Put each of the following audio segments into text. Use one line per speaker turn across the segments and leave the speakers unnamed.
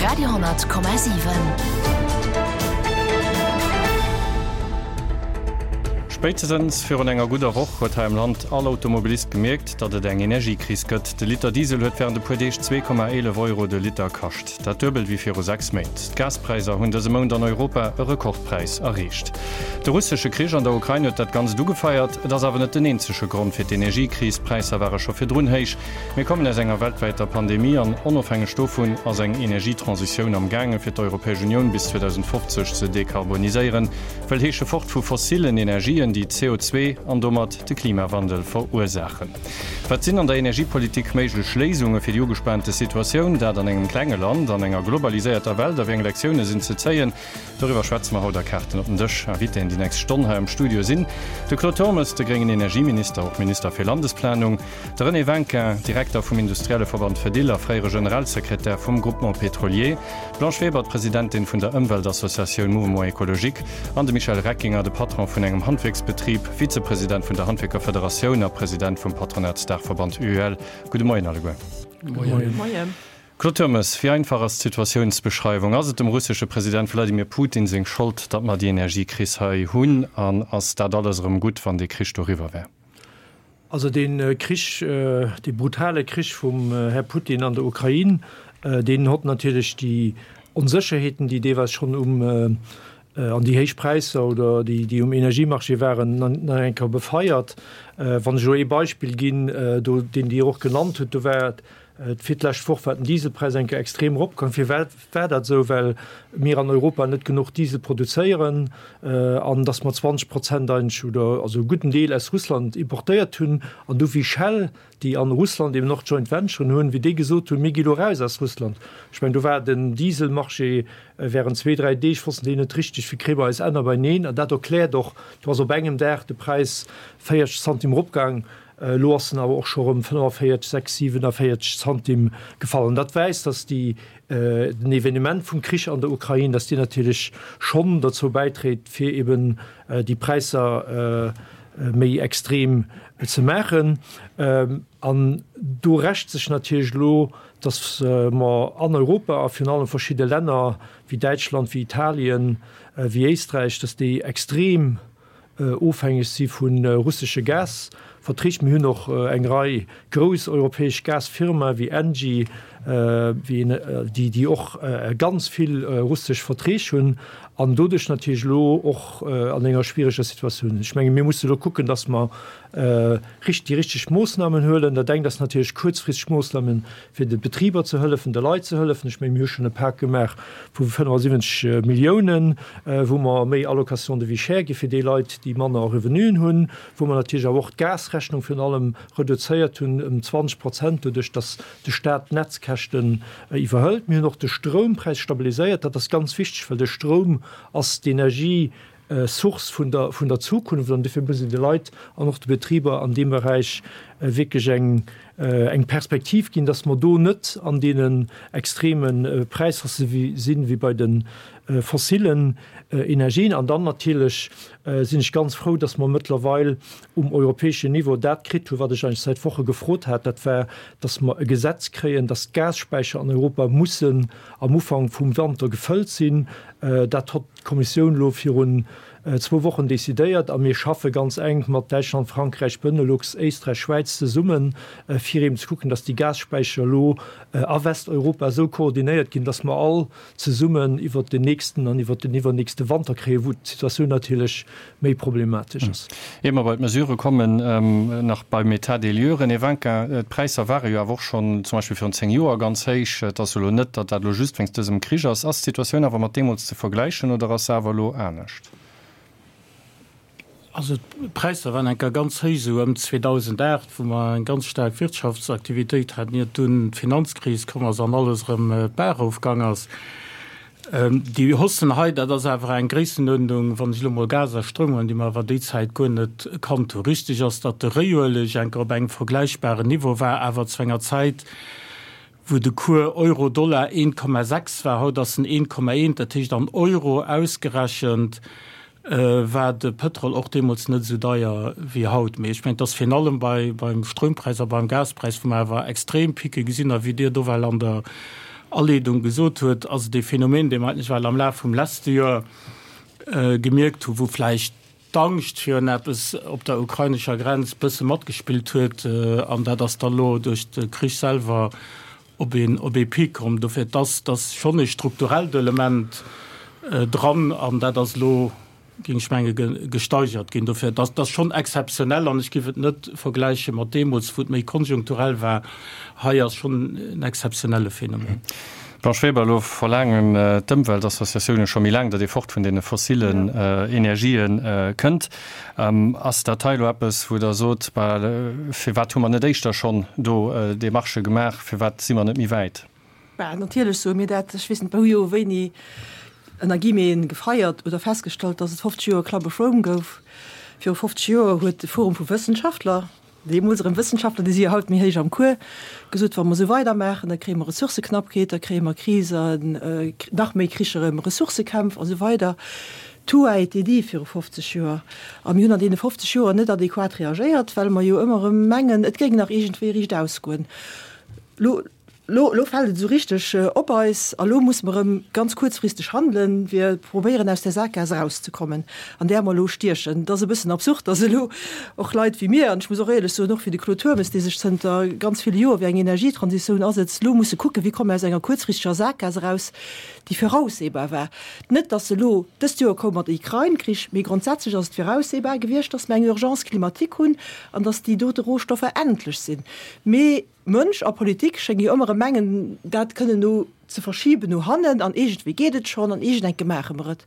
Radio 10,7.
Spéitstens virun enger gudder Woch huet hei am Land all Automobilist gemierkt, datt et eng Energiekris gëtt. De Liter Diesel huet wärend e puer Deeg 2,11 Euro de Liter kascht, dat duebel wéi viru 6 Méint. D'Gaspräisser hunn dëse Mount an Europa e Rekordpräis erreecht. De russesche Krich an der Ukrain huet dat Ganzt ugefeiert. Et ass awer net den eenzege Grond fir d'Energiekris. D'Präisser ware scho virdrun héich. Mir kommen aus enger weltwäiter Pandemie an onofhängeg dovun ass eng Energietransitioun am gaange fir d'Europäesch Unioun bis 2050 ze dekarboniséieren, wëll heesche fort vu fossilen Energien, déi CO2 an domat de Klimawandel verursaachen. Wat sinn an der Energiepolitik méiglech Léisunge fir déi ugespaante Situatioun, dat an engem klenge Land an enger globaliséierter Welt a wéi eng Lektioune sinn ze zéien? Doriwwer schwätze mer haut a Kaarten op den Dësch. Invitéen déi nächst Stonn hei am Studio sinn de Claude Turmes, de gréngen Energieminister, och Minister fir Landesplanung, de René Winkin, Direkter vum Industrielleverband Fedil a fréiere Generalsekretär vum Groupement Pétrolier, d'Blanche Weber, d'Presidentin vun der Ëmweltassociatioun Mouvement Écologique an de Michel Reckinger, de Patron vun engem Handwierksbetrib, Vizepresident vun der Handwierkerfederatioun a President vum Patronatsdaachverband UEL. Gudde Moien alleguer.
Gudde Moien.
Claude Turmes, Wéi einfach ass d'Situatiounsbeschreiwung? Ass et dem russesche President Wladimir Putin seng Schold, datt mer déi Energiekris hei hunn? An ass dat alles erëm gutt, wann dee Krich doriwwer wär?
Also dee Krich, dee brutale Krich vum Här Putin an der Ukrain, deen hott natierlech déi Onsécherheeten, déi deelweis schonn um, an déi héich Präisser oder déi, déi um Energiemarché waren, nach eng Kéier befeiert. Wann ech elo ee Beispill ginn, do, deen Dir och genannt hutt, do war Fir d'lescht Woch war den Dieselpräis eng Kéier extrem eropgaang. Firwat war dat esou? Well mir an Europa net genuch Diesel produzéieren an datt mer 20 Prozent eigentlech oder also e gudden Deel aus Russland importéiert hunn. An du wéi Shell, déi an Russland eben och Joint Venturen hunn, wéi déi gesot hunn, mir gi lo raus aus Russland. Ech mengen, do war den Dieselmarché während zwee, dräi Deeg wossten déi net richteg, wéi kréie mer eis Enner beineen. An dat erkläert och, do ass op engem Dag de Präis 40 Zantim eropgaang. Elo ass en awer och scho rëm 45, 6, 47 Zantim gefall. An dat weist, dass déi, den Evenement vum Krich an der Ukrain, dass deen natierlech schonn dozou bäitréit, fir eben déi Präisser méi extrem ze maachen. An do rächt sech natierlech elo, dass mer an Europa a virun allem verschidde Länner wéi Däitschland, wéi Italien, wéi Éisträich, dass déi extrem ofhängeg si vu russesche Gasverträg. Mir hunn och eng Rei grouss europäesch Gasfirmae wéi Engie, déi déi och ganz vill russesch Verträg hunn an doduerch natierlech elo och an enger schwiereger Situatioun sinn. Ech menge mir musse elo kucken, datt mer déi richteg Moossnamen huelen. Dat engt ass natierlech kuerzfristeg Moossnamen, fir de Betriber ze hëllefen, de Leit ze hëllefen. Ech mengen, mir hu schonn e Pak gemaach vu 75 Milliounen, wou mer méi Allocation de vie chère gi fir déi Leit, déi manner Revenuen hunn, wou mer natierlech awer och d'Gasrechnung virun allem reduzéiert hunn ëm 20 Prozent, doduerch datt de Stat d'Netzkäschten iwwerhëlt. Mir hunn och de Stroumpräis stabiliséiert. Dat ass ganz wichteg, well de Stroum ass d'Energie, Source vun der, vun der Zukunft an dofir muss een de Leit an och de Betriber an deem Beräich wierklech eng, eng Perspektiv ginn, dass mer do net an deenen extreme Präishaussë sinn, wéi bei de fossilen Energien. An dann natierlech sinn ech ganz frou, dass mer mëttlerweil um europäeschen Niveau dat kritt hunn, wat ech eigentlech säit Woche gefrot hat, dat war, dass mer e Gesetz kréien, dass d'Gasspäicher an Europa mussen am Ufank vum Wanter gefëllt sinn. Dat hott d'Kommissioun elo virun zwou Wochen decidéiert a mir schaffe ganz enk mat Däitschland, Frankräich, Benelux, Éisträich, Schwäiz zesummen, fir eben ze kucken, dass déi Gasspäicher elo a Westeuropa esou koordinéiert ginn, dass mer all zesummen iwwert den nächsten an iwwert den iwwernächste Wanter kréien, wou d'Situatioun natierlech méi problematesch ass.
Ier mer bei d'Mesurë kommen, nach beim État des lieux, René Winkin, D'Präisser ware jo awer och schonn zum Beispill virun 10 Joer ganz héich. Et ass elo net, datt dat elo just wéinst dësem Krich ass. Ass d'Situatioun awer mat deemools ze vergläichen oder ass se awer elo anescht?
Also d'Präisser waren eng Kéier ganz héich, esou ëm 2008, wou mer eng ganz staark Wirtschaftsaktivitéit haten, iert dunn d'Finanzkris komm ass an alles erëm d'Baach erofgaang ass. Déi Haussen hei, dat ass awer eng Gréissenuerdnung, wann ech elo mol Gas a Stroum huelen, déi mer awer déi Zäit guer net kannt hunn. Richtig ass, datt de Réiueleg eng Kéier op engem vergläichbaren Niveau war, awer zu enger Zäit, wou de Cours Euro-Dollar 1,6 war, haut ass en 1,1, dat heescht an Euro ausgerechent war de Pëtrol och deemools net esou deier wéi haut. Mee ech mengen, et ass virun allem bei, beim Stroumpräis a beim Gaspräis, wou mer awer extrem Picke gesinn a wéi Dir do well an der. Aleedung gesot huet, ass et ee Phänomen, dee mer eigentlech well am Laf vum leschte Joer gemierkt hu wou vläicht d'Angscht virun eppes op der ukrainescher Grenz bësse matgespillt huet an dat ass da lo duerch de Krich selwer op een op ee Pic komm. Dofir, et ass, et ass schonn ee strukturellt Element dran an dat ass elo, géing ech menge gesteigert ginn. Dofir, et ass, et ass schonn exzeptionell an ech géif et net vergläiche mat deemools, wou et méi konjunkturell war. Hei ass schonn en exzeptionelle Phänomen.
Blanche Weber, Elo verlaangen d'Ëmweltassociatioune scho méi laang, datt ee fort vun deene fossillen Energië kënnt. Ass dat hei elo eppes, wou Der sot, bah, firwat hu mer net éischter schonn do Demarchë gemaach, firwat si mer net méi wäit?
Bah, natierlech soe mir dat. Ech weess net, mer hu jo wéini ënner Guillemeten gefeiert oder festgestallt, datt et 50 Joer Club of Rome gouf. Viru 50 Joer huet de Forum vu Wëssenschaftler, Deemools erëm Wëssenschaftler, déi si jo haut méi héich am Cours, gesot, wa mer esou weidermaachen, da kréie mer Ressourcëknappheet, da kréie mer Krisen, nach méi Kricher ëm Ressourcëkämpf a sou weider. Tout a été dit viru 50 Joer. A mir hunn an deene 50 Joer net adequat reagéiert, well mer jo ëmmer erëm mengen, et géing nach iergendwéi riicht ausgoen. Lo. Lo, lo fält et esou richteg op eis a lo musse mer erëm ganz kuerzfristeg handelen, fir probéieren aus där Sakgaass erauszekommen, an där mer elo stiechen. Et ass e bëssen absurd, dass elo och Leit wéi mir, an ech muss och éierlech soen, och wéi de Claude Turmes, dee sech zënter ganz ville Joer fir eng Energietransitioun asetzt, elo musse kucken, wéi komme mer aus enger kuerzfristeger Sakgaass eraus, déi voraussehbar war. Net, dass se elo dëst Joer koum mat Ukrain-Krich, mee grondsätzlech ass et voraussehbar gewiescht, dass mer eng Urgence climatique hunn an dass déi dote Rohstoffer endlech sinn. Mee Mënsch a Politik schénge jo ëmmer erëm mengen, dat kënnen no ze verschiben no hannen an iergendwéi geet et schonn an iergendenke maache mer et.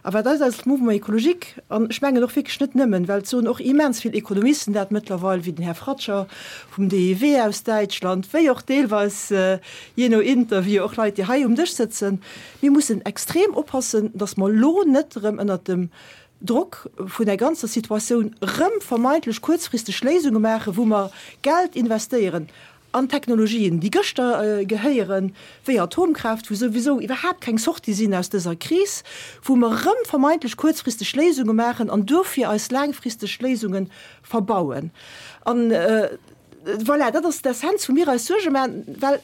A wat eis als Mouvement écologique, an ech mengen och wierklech net nëmmen, well et soen och immens vill Ekonomisten dat mëttlerweil, wéi den Här Fratscher vum DIW aus Däitschland, wéi och deelweis, jee no Interview, och Leit, déi hei um Dësch sëtzen, mir mussen extrem oppassen, datt mer elo net erëm ënnert dem Drock vun der ganzer Situatioun rëm vermeintlech kuerzfristeg Léisunge maachen, wou mer Geld investéieren an Technologien, déi gëschter gehéieren, wéi Atomkraaft, wou souwisou iwwerhaapt keng Sortie sinn aus dëser Kris, wou mer rëm vermeintlech kuerzfristeg Léisunge maachen an dofir eis laangfristeg Léisunge verbauen. An voilà, dat ass d'Essenz, wou mir eis Suerge maachen, well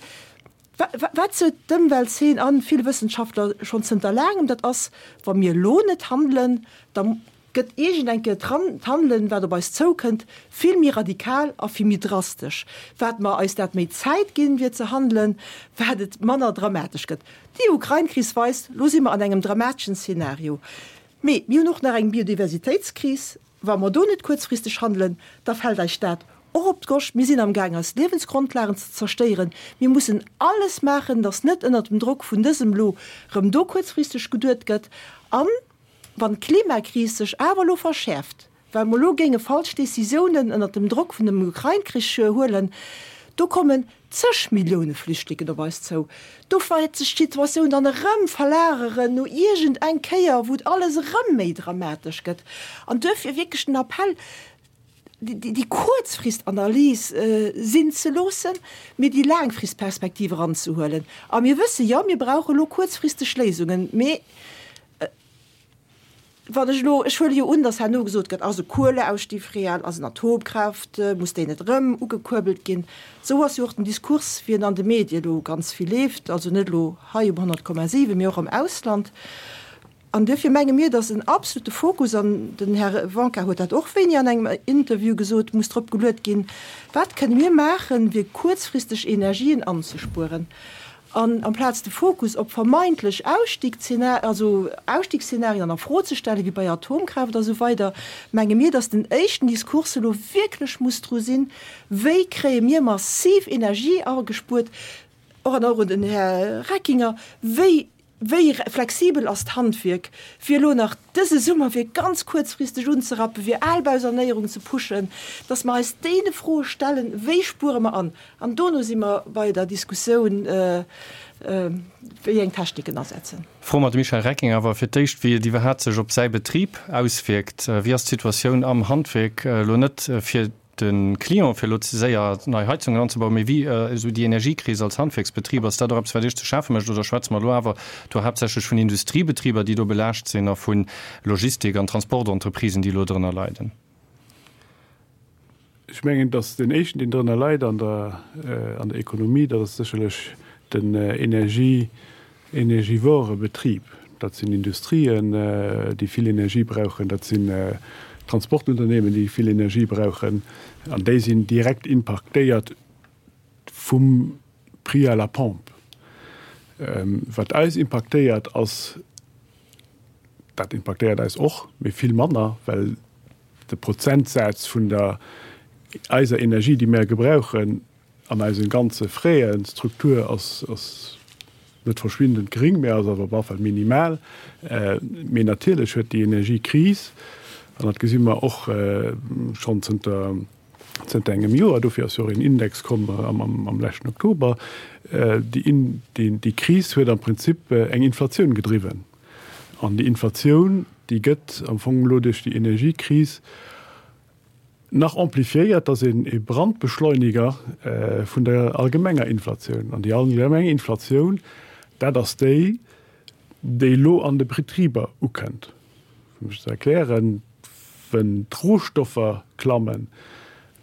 Wat sot d'Ëmweltzeen an vill Wëssenschaftler schonn zënter laangem, dat ass, wa mir elo net handelen, da gëtt iergend eng Kéier d'Handelen, wat op eis zoukënnt, vill méi radikal a vill méi drastesch. Wat mer eis dat méi Zäit ginn, fir ze handelen, wat et manner dramatesch gëtt. Déi Ukrain-Kris weist, elo si mer an engem dramateschen Szenario. Mee mir hunn och nach eng Biodiversitéitskris. Wa mer do net kuerzfristeg handelen, da fält eis dat och op d'Goscht. Mir sinn amgaang eis Liewensgrondlagen ze zerstéieren. Mir mussen alles maachen, datt net ënnert dem Drock vun dësem elo rëm do kuerzfristeg geduet gëtt. A wann d'Klimakris sech awer elo verschäerft, well mer elo géinge falsch Décisiounen ënnert dem Drock vun dem Ukrain-Krich huelen, do kommen zeg Millioune Flüchtlingen op eis zou. Do wäert sech d'Situatioun dann erëm verlageren no iergend eng Kéier, wou et alles erëm méi dramatesch gëtt. An duerfir wierklech den Appell, déi Kuerzfristanalys sinn ze loossen, mee déi Laangfristperspektiv eranzehuelen. A mir wësse jo, mir brauche elo kuerzfristeg Léisungen, mee Wann ech elo, ech huele jo un, datt herno gesot gëtt, ass e Kueleausstieg real, ass en Atomkraaft, muss déi net erëm ugekuerbelt ginn? Esou ass jo och den Diskurs, wéi en an de Medie elo ganz vill leeft, also net elo hei um 100,7, mee och am Ausland. An duerfir menge mir, datt en absolute Fokus, an den Här Wanka huet dat och wéini an engem Interview gesot, muss drop geluet ginn, Wat kënne mir maachen, fir kuerzfristeg Energien anzespueren? An amplaz de Fokus op vermeintlech Ausstiegsszenarien an a Fro ze stellen, wéi bei Atomkraaft a sou weider, menge mir, datt den éischten Diskurs elo wierklech muss dru sinn, Wéi kréie mir massiv Energie agespuert, och an och un den Här Reckinger, wéi Wéi flexibel ass d'Handwierk, fir elo nach dëse Summer fir ganz kuerzfristeg unzerappen, fir Albausanéierung ze pushen, dass mer eis deene Froe stellen, Wéi spuere mer an? An dono si mer bei der Diskussioun, wéi eng Techniken asetzen.
Froe mer de Michel Recking awer fir d'éischt, wéi et iwwerhaapt sech op säi Betrib auswierkt. Wéi ass d'Situatioun am Handwierk elo net fir de Client, fir elo ze séier nei Heizungen anzebauen, mee wéi esou déi Energiekris als Handwierksbetrib, ass dat och eppes, wat Iech ze schafe mécht, oder schwätze mer elo awer do haaptsächlech vun Industriebetriber, déi do belaascht sinn, a vu Logistik an Transportentreprisen, déi elo drënner leiden?
Ech mengen, datt deen éischten, deen drënner leit an der, an der Ekonomie, dat ass sécherlech. den Energie, energivore Betrib. Dat sinn Industrien, déi vill Energie brauchen, dat sinn Transportunternehmen, déi vill Energie brauchen, an déi sinn direkt impaktéiert vum Prix à la pompe. Wat eis impaktéiert ass, dat impaktéiert eis och, mee vill manner, well de Prozentsaz vun der eiser Energie, déi mär gebrauchen, An eisen ganze Fräen Struktur ass ass net verschwindend gering, mä ass awer op alle Fall minimal. Mee natierlech huet déi Energiekris, an dat gesi mer och schonn zënter zënter engem Joer, dofir ass jo och een Index komm am am leschten Oktober, déi déi Kris huet am Prinzip eng Inflatioun gedriwwen. An déi Inflatioun, déi gëtt am Fong elo duerch déi Energiekris Nach amplifiéiert, ass een e Brandbeschleuniger vun der allgemenger Inflatioun. An déi allgemeng Inflatioun, dat ass déi, déi elo an de Betriber ukënnt. Fir mech ze erklären, Wenn d'Rohstoffer klammen,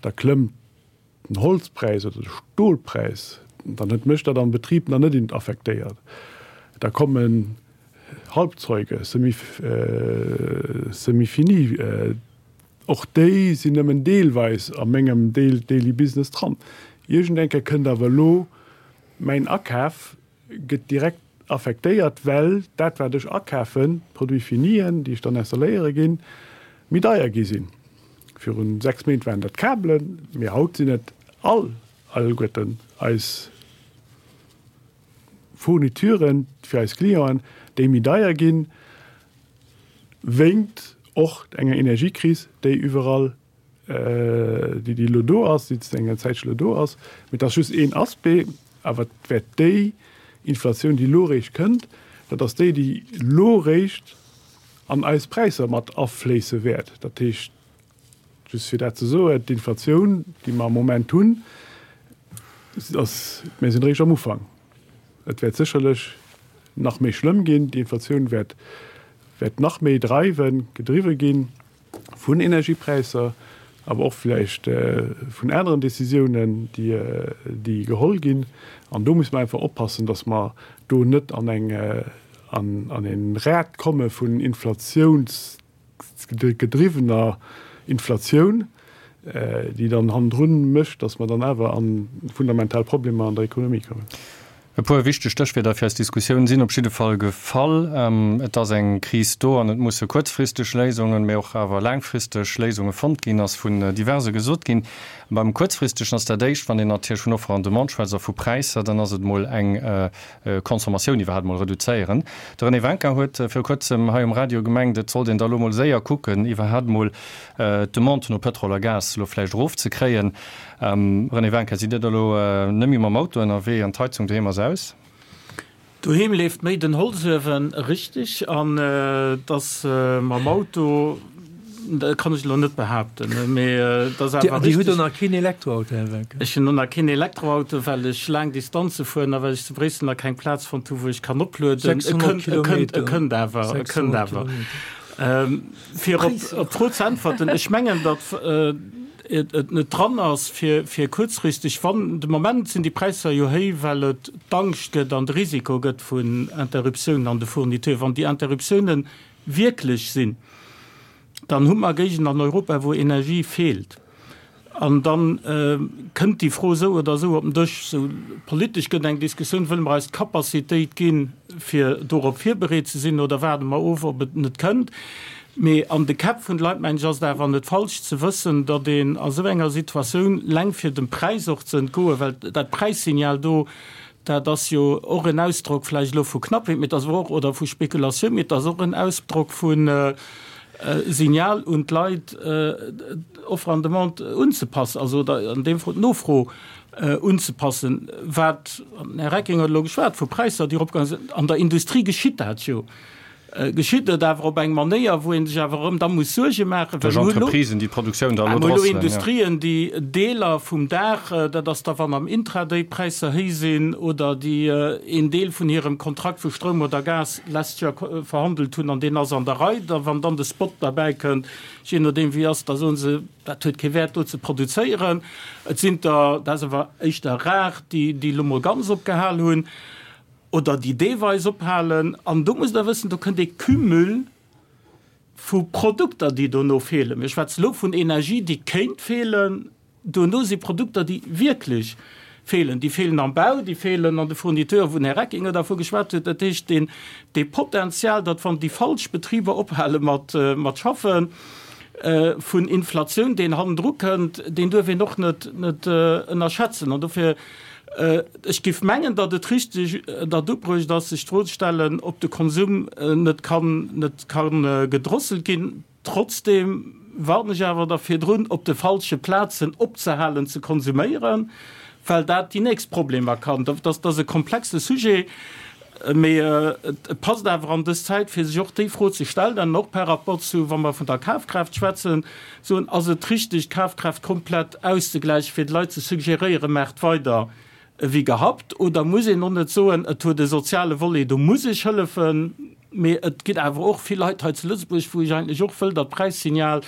da klëmmt den Holzpräis oder de Stolpräis, dann huet mech dat am Betrib nach net affektéiert. Da kommen Halbzeuge, Semi-finis, och déi sinn nëmmen deelweis a mengem Daily Business dran. Iergend eng Kéier kënnt awer elo mäin Akaf gëtt direkt affektéiert, well dat wat ech akafen, d'Produits finien, déi ech dann installéiere ginn, méi deier gi sinn. Virun 6 Méint waren dat Kabelen, mee haut sinn et all alleguerten eis Fournituren fir eis Clienten, déi méi deier ginn, wéingt och enger Energiekris, déi iwwerall déi déi elo do ass, déi zënter enger Zäitche elo do ass. Mee et ass just een Aspect, awer et wäert déi Inflatioun, déi elo eréischt kënnt, dat ass déi, déi elo eréischt an eis Präisser mat afléisse wäert. Dat heescht, just fir dat ze soen, d'Inflatioun, déi mer am Moment hunn, ass, mir sinn eréischt am Ufank. Et wäert sécherlech nach méi schlëmm ginn, déi Inflatioun wäert wäert nach méi dreiwen, gedriwwe ginn. vun Energiepräisser, awer och vläicht vun aneren Décisiounen, déi geholl ginn. An do muss mer einfach oppassen, dass mer do net an eng, an e Rad komme vun inflatiounsgedriwwener Inflatioun, déi dann hannendrun mécht, dass mer dann awer a fundamental Problemer an der Ekonomie kommen.
E puer wichteg Stéchwierder fir eis Diskussioun sinn op jidde Fall gefall. Et ass eng Kris do an et musse kuerzfristeg Léisungen, mee och awer laangfristeg Léisunge fonnt ginn, ass vun diverse gesot ginn. Beim Kuerzfristegen ass dat éischt, wann een natierlech vun Offer an Demande schwätzt a vu Präisser, dann ass et mol eng Consommatioun iwwerhaapt mol reduzéieren. De René Wencker huet viru kuerzem hei um Radio gemengt, et sollt een da lo mol séier kucken, iwwerhaapt mol d'Demande no Pëtrol a Gas lo vläicht erofzekréien. René Wencker, Sidd Dir da lo net méi mam Auto ënnerwee an d'Heizung doheem ass aus?
Doheem leeft méi den Holzuewen, richteg. An et ass mam Auto, dat kann ech elo net behaapten, mee et ass awer
richteg. Dir hutt och nach keen Elektroauto, Här Wencker?
Ech hunn och nach keen Elektroauto, well ech laang Distanze fueren a well ech zu Bréissel nach keng Plaz fonnt hu wou ech kann oplueden.
600 Kilometer.
E kënnt awer, e kënnt awer. Fir op d'Fro ze äntwerten, ech mengen, datt et net dran ass, fir kuerzfristeg, wann de Moment sinn déi Präisser jo héi, well et d'Angscht gëtt an de Risiko gëtt vun Interruptiounen an de Fourniture. Wann déi Interruptiounen wierklech sinn, dann hu mer Géigenden an Europa, wou Energie feelt. An da kënnt déi Fro esou oder esou op den Dësch. Sou politesch gëtt eng Diskussioun, Wëlle mer eis d'Capacitéit ginn, fir dorop virbereet ze sinn, oder waarde mer of, ob et net kënnt? Mee an de Käpp vun de Leit, mengen ech, ass et awer net falsch ze wëssen, datt een a sou enger Situatioun, leng fir dem Präis och ze entgoen, well dat Präissignal do, dat ass jo och en Ausdrock vläicht elo vu Knappheet, mee et ass awer och, oder vu Spekulatioun, mee et ass och en Ausdrock vu Signal un d'Leit, d'Offre an Demande unzepassen, also oder an deem Fall d'Nofro unzepassen. Wat, an den Här Recking huet elo geschwat vu Präisser, déi eropgaange sinn, an der Industrie geschitt dat jo. Geschitt et awer op eng Manéier, wou ee sech awer erëm da muss Suerge maachen,
well
mir
hu
elo,
Entreprisen, déi d'Produktioun da elo
mir hu elo
drosselen, jo.
Industrien, déi Deeler vum Dag, dat ass da wann am Intraday d'Präisser héich sinn, oder déi een Deel vun hirem Kontrakt vu Stroum oder Gas d'lescht Joer verhandelt hunn an deen ass an der Rei, da wann dann de Spot derbäi kënnt, jee nodeem wéi ass, da soe se, dat huet kee Wäert do ze produzéieren. Et sinn der, dat ass awer éischter rar, déi déi elo mol ganz opgehal hunn. Oder déi deelweis ophalen. An do musst Der wëssen, do kënnt ee Cumul vu Produkter, déi dono feelen. Mir schwätzen elo vun Energie, déi kéint feelen. Duerno si Produkter, déi wierklech feelen. Déi feelen am Bau, déi feelen an de Fourniteuren, wou den Här Reckinger dervu geschwat huet. Dat heescht, deen, dee Potenzial, datt wann déi falsch Betriber ophale mat, mat schaffen, vun Inflatioun, deen hannendru kënnt, deen duerf een och net, net ënnerschätzen. An dofir Ech géif mengen, datt et richteg, datt ubruecht ass, sech d'Fro ze stellen, ob de Konsum net kann, net ka gedrosselt ginn. Trotzdeem warnen ech awer da virdrun, op de falsche Plazen opzehalen ze konsuméieren, well dat déi nächst Problemer kann. Dat ass e komplexe Sujet, mee et passt awer an dës Zäit, fir sech och déi Fro ze stellen, an och par rapport zu, wa mer vun der Kafkraaft schwätzen, Soen, ass et richteg, d'Kafkraaft komplett auszegläichen, fir de Leit ze suggeréieren, maacht weider ewéi gehabt? Oder muss een och net soen, et huet e soziale Volet, do muss ech hëllefen, mee et ginn awer och vill Leit hei zu Lëtzebuerg, wou ech eigentlech och wëll, datt d'Präissignal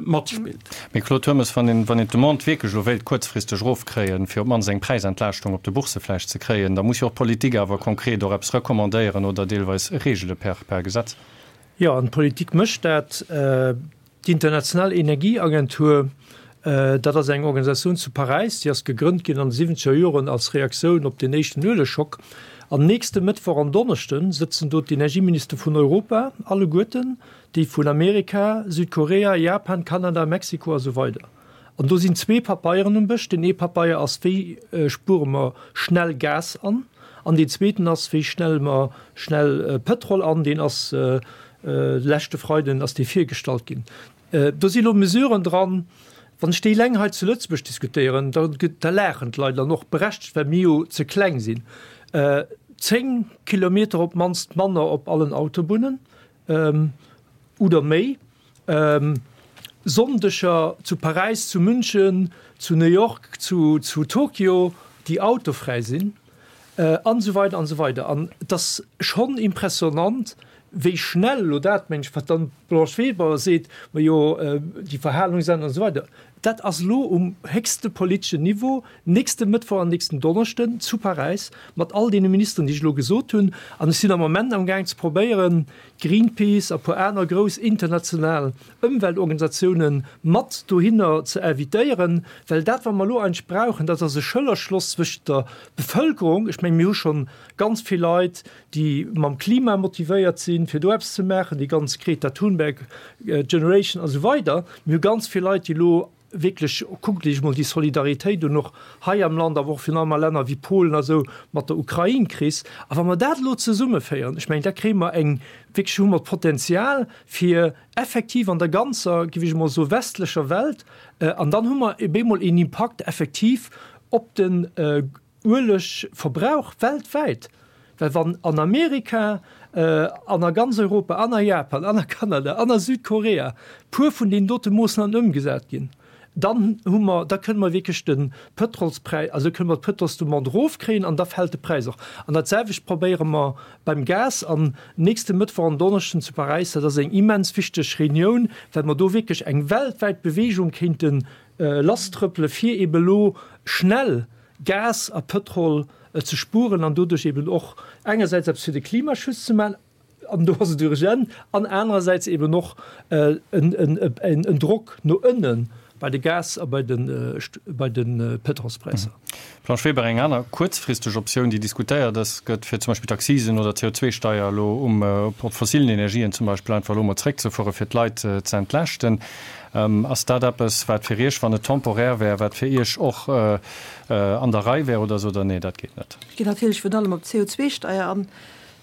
matspillt.
Mee Claude Turmes, wann een, wann een d'Demande wierklech elo wéilt kuerzfristeg erofkréien, fir op d'mannst eng Präisentlaaschtung op de Boursse vläicht ze kréien, da muss jo och d'Politik awer konkret och eppes recommandéieren oder deelweis regele per, per Gesetz.
Jo, an d'Politik mécht dat. D'International Energieagentur, dat ass eng Organisatioun zu Paräis, déi ass gegrënnt ginn an de siwwenzeger Joren als Reaktioun op den éischten Uelegschock. An nächste Mëttwoch an Donneschde sëtzen do d'Energieminister vun Europa alleguerten, déi vun Amerika, Südkorea, Japan, Kanada, Mexiko a sou weider. An do sinn zwee Papeieren um Bësch. Deen ee Papeier ass, wéi spuere mer schnell Gas an? An deen zweeten ass, wéi schnelle mer schnell Pëtrol an? Deen ass leschte Freiden ass dee virgestallt ginn. Do si lo Mesuren dran, wann ech déi eleng hei zu Lëtzebuerg diskutéieren, da da laachen d'Leit an och berechtegt, well mir jo ze kleng sinn. 10 Kilometer op d'mannst manner op allen Autobunnen oder méi. Sonndeger zu Paräis, zu München, zu New York, zu Tokio, déi autofräi sinn, an esou weider an esou weider. An et ass schonn impressionnant, wéi schnell elo dat, mengen ech, wat dann d'Blanche Weber seet, majo déi Verhalungsänder an esou weider, dat ass elo um héchste politeschen Niveau nächste Mëttwoch an nächsten Donneschden zu Paräis mat all deene Ministeren, déi ech elo gesot hunn. An ech sinn am Moment amgaang ze probéieren, Greenpeace a puer aner grouss international Ëmweltorganisatiounen mat dohinner ze invitéieren, well dat wat mer elo eigentlech brauchen, dat ass e Schëllerschloss zwëschent der Bevëlkerung, ech mengen mir hu schonn ganz vill Leit, déi mam Klima motivéiert sinn, fir do eppes ze maachen, déi ganz Greta Thunberg Generation a sou weider, mir hu ganz vill Leit, déi elo wierklech, kuckt Iech emol déi Solidaritéit un, och hei am Land, awer och virun allem a Länner wéi Polen a sou, mat der Ukrain-Kris. A wa mer dat elo zesummeféieren, ech mengen, da kréie mer eng, wierklech hu mer d'Potenzial, fir effektiv an der ganzer, géif ech emol soen, westlecher Welt, an dann hu mer op eemol een Impakt effektiv op den Uelegverbrauch weltwäit, well wann an Amerika an a ganz Europa an a Japan an a Kanada an a Südkorea puer vun deenen dote Moossnamen ëmgesat ginn, dann hu mer, da kënne mer wierklech de Pëtrolspräis, also kënne mer d'Pëtrolsdemande erofkréien an da fält de Präis och. An dat selwecht probéiere mer beim Gas. An nächste Mëttwoch an Donneschden zu Paräis, dat ass eng immens wichteg Reunioun, well mer do wierklech eng weltwäit Beweegung kéinte lasstrëppele fir eebe lo schnell Gas a Pëtrol ze spueren an doduerch eben och engersäits eppes fir de Klimaschutz ze maachen, an do ass et urgent, an anerersäits eben och en Drock no ënne bei de Gas a bei de Pëtrolspräisser.
Blanche Weber, Eng aner kuerzfristeg Optioun, déi diskutéiert ass, gëtt, fir zum Beispill d'Accisen oder d'CO2-Steier elo um op fossilen Energien zum Beispill einfach elo emol zréckzefuere fir d'Leit ze entlaaschten. Ass dat eppes, wat fir Iech, wann et temporär wär, wat fir Iech och an der Rei wär oder sot Der, nee, dat geet net?
Ech ginn natierlech virun allem op d'CO2-Steier an.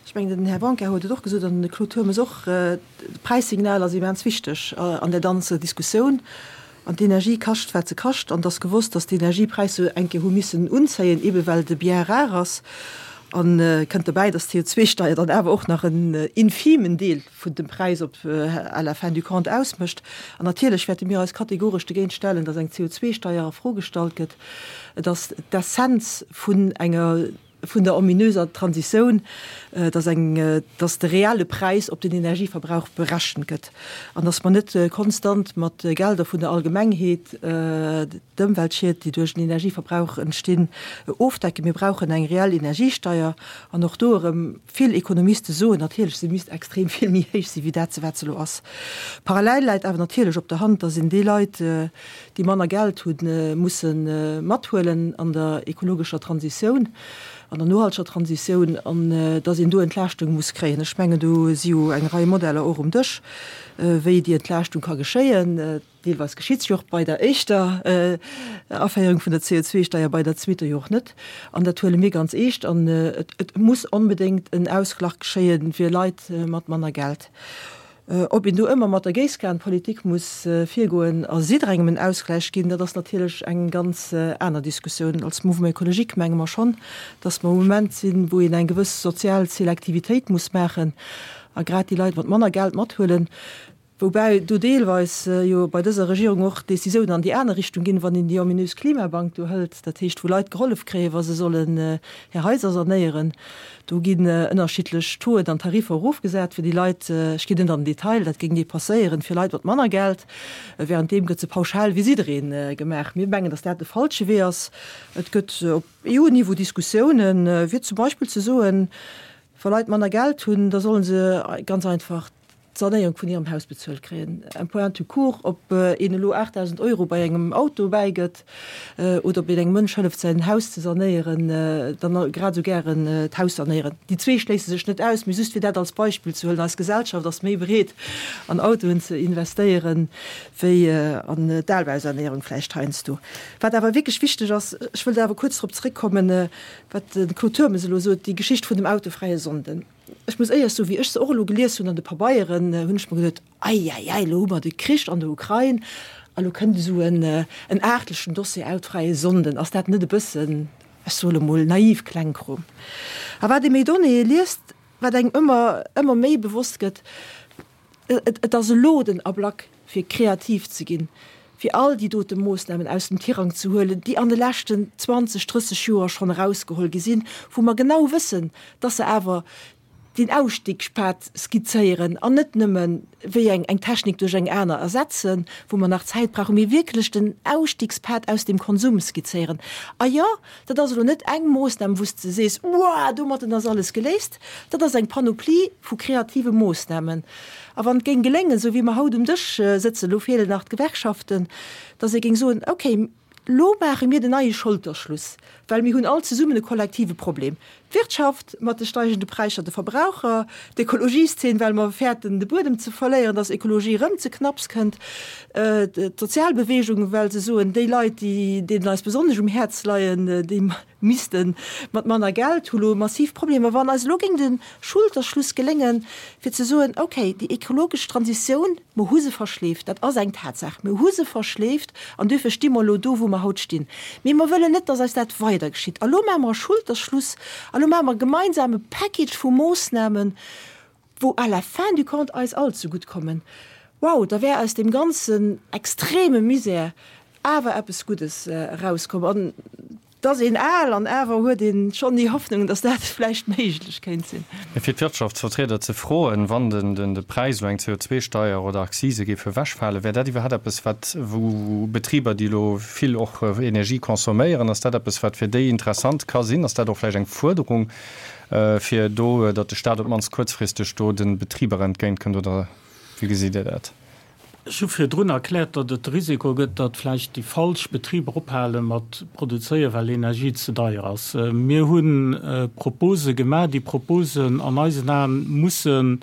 Ech mengen, den Här Blanquer huet et och gesot an de Claude Turmes och, D'Präissignal ass immens wichteg an där ganzer Diskussioun. An d'Energie kascht, wat se kascht. An et ass gewosst, datt d'Energiepräisser eng Kéier hu missen unzéien, eebe well de Bien rare ass. A kënnt dobäi, dass d'CO2-Steier dann awer och nach en infimen Deel vun dem Präis op à la fin du compte ausmécht. An natierlech wäerte mir eis kategoresch dogéint stellen, dass eng CO2-Steier a Fro gestallt gëtt. Et ass d'Essenz vun enger, vun der ominöser Transitioun, dass eng, dass de reelle Präis op den Energieverbrauch berechent gëtt an dass mer net konstant mat Gelder vun der Allgemengheet d'Ëmweltschied, déi duerch den Energieverbrauch entstinn, ofdecken. Mir brauchen eng reell Energiesteier an och do erëm, Vill Ekonomiste soen natierlech, se misst extrem vill méi héich sinn, wéi dat se wat se elo ass. Parallel läit awer natierlech op der Hand, datt een déi Leit, déi manner Geld hunn, musse mathuelen an der ekologescher Transitioun, an der nohalteger Transitioun, an datt een do Entlaaschtung muss kréien. Ech mengen, do si jo eng Rei Modeller och um Dësch, wéi déi Entlaaschtung ka geschéien. Deelweis geschitt se jo och bei der éischter Aféierung vun der CO2-Steier, bei der zweeter jo och net. An dat huele mir ganz eescht. An et muss onbedéngt en Ausglach geschéie fir Leit mat manner Geld. Ob een do ëmmer mat der Géisskanpolitik muss virgoen a jidderengem en Ausgläich ginn, dat ass natierlech eng ganz aner Diskussioun. Als Mouvement écologique menge mer schonn, datt mer um Moment sinn, wou een eng gewëss sozial Selektivitéit muss maachen a grad déi Leit mat manner Geld mathuelen. Woubäi do deelweis jo bei dëser Regierung och Décisiounen an déi aner Richtung ginn, wann een déi ominös Klimabank do hëlt, dat heescht wou Leit gehollef kréien, wa se sollen hir Haiser sanéieren. Do ginn ënnerschiddlech Tauxen an Tariffer erofgesat fir déi Leit, ech ginn net an den Detail, dat géing ni passéieren, fir Leit mat manner Geld. Währenddeem gëtt se pauschal fir jidderee gemaach. Mir mengen, datt dat de falsche Wee ass. Et gëtt op EU-Niveau Diskussiounen, fir zum Beispill ze soen, wa Leit manner Geld hunn, da solle se ganz einfach d'Sanéierung vun hirem Haus bezuelt kréien. Un point tout court, ob een elo 8.000 Euro bei engem Auto bäigëtt oder ob een engem Mënsch hëlleft säin Haus ze sanéieren, dann grad esou gären d'Haus sanéieren. Déi zwee schléisse sech net aus, mee just fir dat als Beispill ze huelen, eis Gesellschaft ass méi bereet an Autoen ze investéieren, wéi an d'Albausanéierung vläicht heiansdo. Wat awer wierklech wichteg ass, ech wëll do awer kuerz drop zeréckkommen, wat de Claude Turmes elo sot, déi Geschicht vun dem autofräie Sonnden. Ech muss éierlech soen, wéi ech se och elo gelies hunn an de Pabeieren, hunn ech mer geduet, Eieiei, elo hu mer de Krich an der Ukrain a lo kënnt esou en en aartlechen Dossier, Autofräie Sonnden. Ass dat net e bëssen, ech soe lo mol, naiv Klengkrom? A wat ee méi Donnéeë liest, wat engem ëmmer, ëmmer méi bewosst gëtt, Et ass elo den Ablack, fir kreativ ze ginn, fir all déi dote Moossnamen aus dem Tirang ze huelen, déi an de leschten 20, 30 Joer schonn erausgeholl gi sinn, wou mer genau wëssen, dass se awer den Ausstiegspad skizzéieren an net nëmme wéi eng eng Technik duerch eng aner ersetzen, wou mer nach Zäit brauchen, mee wierklech den Ausstiegspad aus dem Konsum skizzéieren. A jo, dat ass elo net eng Moossnam, wou s de sees, Uah, domatten ass alles geléist. Dat ass eng Panoplie vu kreative Moossnamen. A wann et géing geléngen, esou wéi mer haut um Dësch sëtzen, elo feelen nach d'Gewerkschaften, datt ee géing soen, okay, elo maache mir den neie Scholterschluss, well mir hunn all zesummen e kollektive Problem, d'Wirtschaft mat de steigende Präisser, de Verbraucher, d'Ekologieszeen, well mer fäerten de Buedem ze verléieren, datt Ekologie erëm ze knapps kënnt, d'Sozialbewegung, well se soen, déi Leit, déi deenen eis besonnesch um Häerz leien, déi misste mat manner Geld, hu lo massiv Problemer. Wann eis elo géing de Schulterschluss geléngen, fir ze soen, okay, déi ekologesch Transitioun, mer hu se verschleeft, dat ass eng Tatsaach, mer hu se verschleeft an duerfir sti mer elo do, wou mer haut stinn, mee mer wëllen net, dass eis dat weider geschitt. A lo maache mer e Schulterschluss a lo maache mer e gemeinsame Package vu Moossnamen, wou à la fin du compte eis all zegutt kommen, wow, da wär aus deem ganzen extreme Misär awer eppes Guddes erauskomm. An et ass een al an awer huet ee schonn déi Hoffnung, datt dat vläicht méiglech kéint sinn.
Mee fir d'Wirtschaftsvertrieder ze froen, wann den de Präis elo eng CO2-Steier oder Akzise géif ewechfalen, wär dat iwwerhaapt eppes, wat, wou Betriber, déi elo vill och Energie consomméieren, ass dat eppes, wat fir déi interessant ka sinn? Ass dat och vläicht eng Fuerderung, fir do, datt de Staat op d'mannst kuerzfristeg do de Betriber entgéint kënnt, oder wéi gesitt Dir dat?
Ech hu virdrun erkläert, datt et de Risiko gëtt, datt vläicht déi falsch Betriber ophale mat produzéieren, well Energie ze deier ass. Mir hu Propose gemaach. Déi Proposen an eisen Aen musse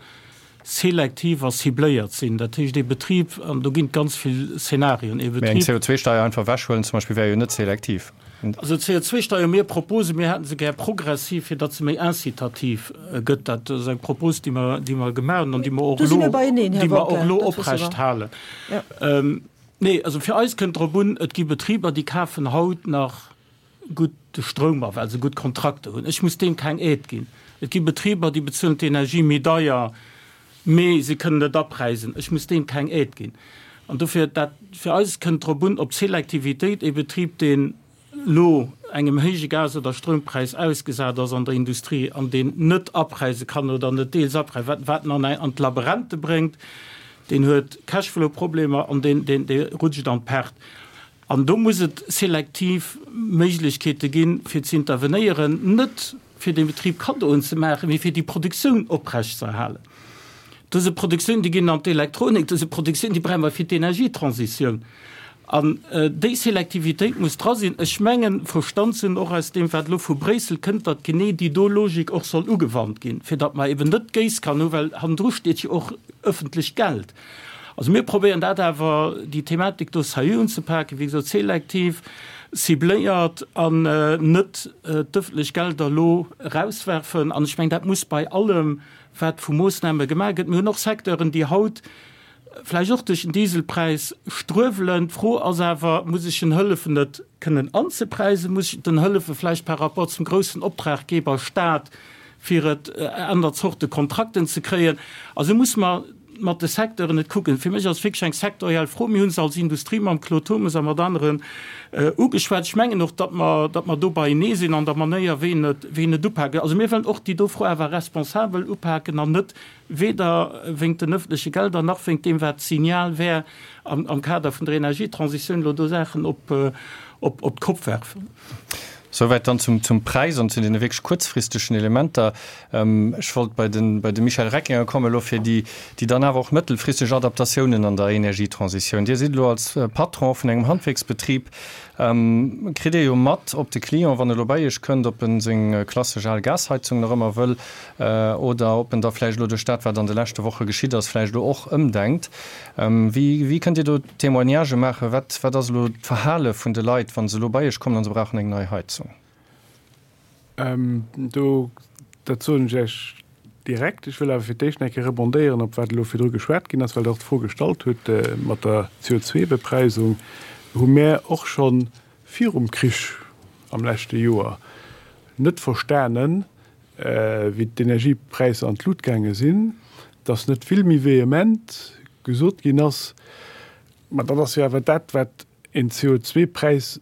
selektiv a cibléiert sinn. Dat heescht, ee Betrib, an do ginn et ganz vill Szenarien, ee
Mee eng Betrib. CO2-Steier einfach ewechhuelen zum Beispill wär jo net selektiv.
Also d'CO2-Steier, mir Propose, mir hätte se gär progressiv, fir datt se méi incitativ gëtt. Dat ass eng Propose, déi mer, déi mer gemaach hunn an déi mer och elo, déi mer och elo oprecht halen. Nee, also fir eis kënnt drop un, et gi Betriber, déi kafen haut nach. gutt de Stroum a well se gutt Kontrakter hunn. Ech muss deem keng Aide ginn. Et gi Betriber, déi bezuelen d'Energie méi deier, mee se kënnen et apreisen. Ech muss deem keng Aide ginn. An dofir, dat fir eis kënnt drop un, op d'Selektivitéit. Ee Betrib, deen elo engem héije Gas oder Stroumpräis ausgesat ass an der Industrie an deen net apreise kann oder net deels apreisen, wat wat en an an d'Laberente bréngt, deen huet Cashflow-Problemer an deen deen dee rutscht an d'Perte. An do muss et selektiv Méiglechkeete ginn, fir ze intervenéieren, net fir dem Betrib Kaddoen ze maachen, mee fir déi Produktioun oprechtzeerhalen. Dëse Produktioun, déi ginn an d'Elektronik, dëse Produktioun, déi brauche mer fir d'Energietransitioun. An déi Selektivitéit muss dra sinn. Ech mengen, verstand ze hunn, och aus deem, wat elo vu Bréissel kënnt, datt genee déi do Logik och soll ugewannt ginn, fir datt mer eben net d'Géisskan hu, well hannendru steet jo och öffentlecht Geld. Also mir probéieren dat awer, déi Thematik do sérieux unzepaken, wéi gesot, selektiv, cibléiert an net d'öffentlech Gelder elo erauswerfen. An ech mengen, dat muss bei allem, wat vu Moossname gemaach gëtt. Mir hunn och Secteuren, déi haut vläicht och duerch den Dieselpräis struewelen. D'Fro ass awer, Muss ech en hëllefen, et kënnen anzepreisen? Muss ech den hëllefe vläicht par rapport zum groussen Optraggeber Stat, fir et aner Zorte Kontrakten ze kréien? Also muss mer mat de Secteuren et kucken. Fir mech ass et wierklech eng sektoriell Fro. Mir hu se als Industrie mam Claude Turmes a mat aneren ugeschwat. Ech mengen och, datt mer, datt mer do beienee sinn an der Manéier, wéi een et, wéi een et upaken. Also mir wëllen och déi do Fro awer responsabel upaken an net weder wéingt den öffentleche Gelder nach wéingt deem, wat d'Signal wär am, am Kader vun der Energietransitioun, elo do Saachen op, op, op d'Kopp werfen.
Souwäit dann zum, zum Präis an zu deene wierklech kuerzfristegen Elementer. Ech wollt bei de, bei de Michel Reckinger kommen elo fir déi, déi dann awer och mëttelfristeg Adaptatiounen an der Energietransitioun. Dir sidd elo als Patron vun engem Handwierksbetrib, kritt Dir jo mat, ob de Client, wann e elo bei Iech kënnt, ob en seng klassesch al Gasheizung nach ëmmer wëll oder ob en da vläicht elo duerch dat, wat an de leschte Woche geschitt ass, vläicht elo och ëmdenkt. Wéi, wéi kënnt Dir do Témoignagë maachen? Wat, wat ass elo d'Verhale vun de Leit, wa se elo bei Iech kommen a se brauchen eng nei Heizung?
Do, dat soen ech Iech direkt. Ech wëll awer fir d'éischt nach eng Kéier rebondéieren op wat elo virdru geschwat ginn ass, well Der och d'Fro gestallt hutt mat der CO2-Bepreisung. Hu mär och scho virum Krich am leschte Joer net verstanen, wéi d'Energiepräisser an d'Lut gaange sinn, dass net vill méi vehement gesot ginn ass, Ma dat ass jo awer dat, wat een CO2-Präis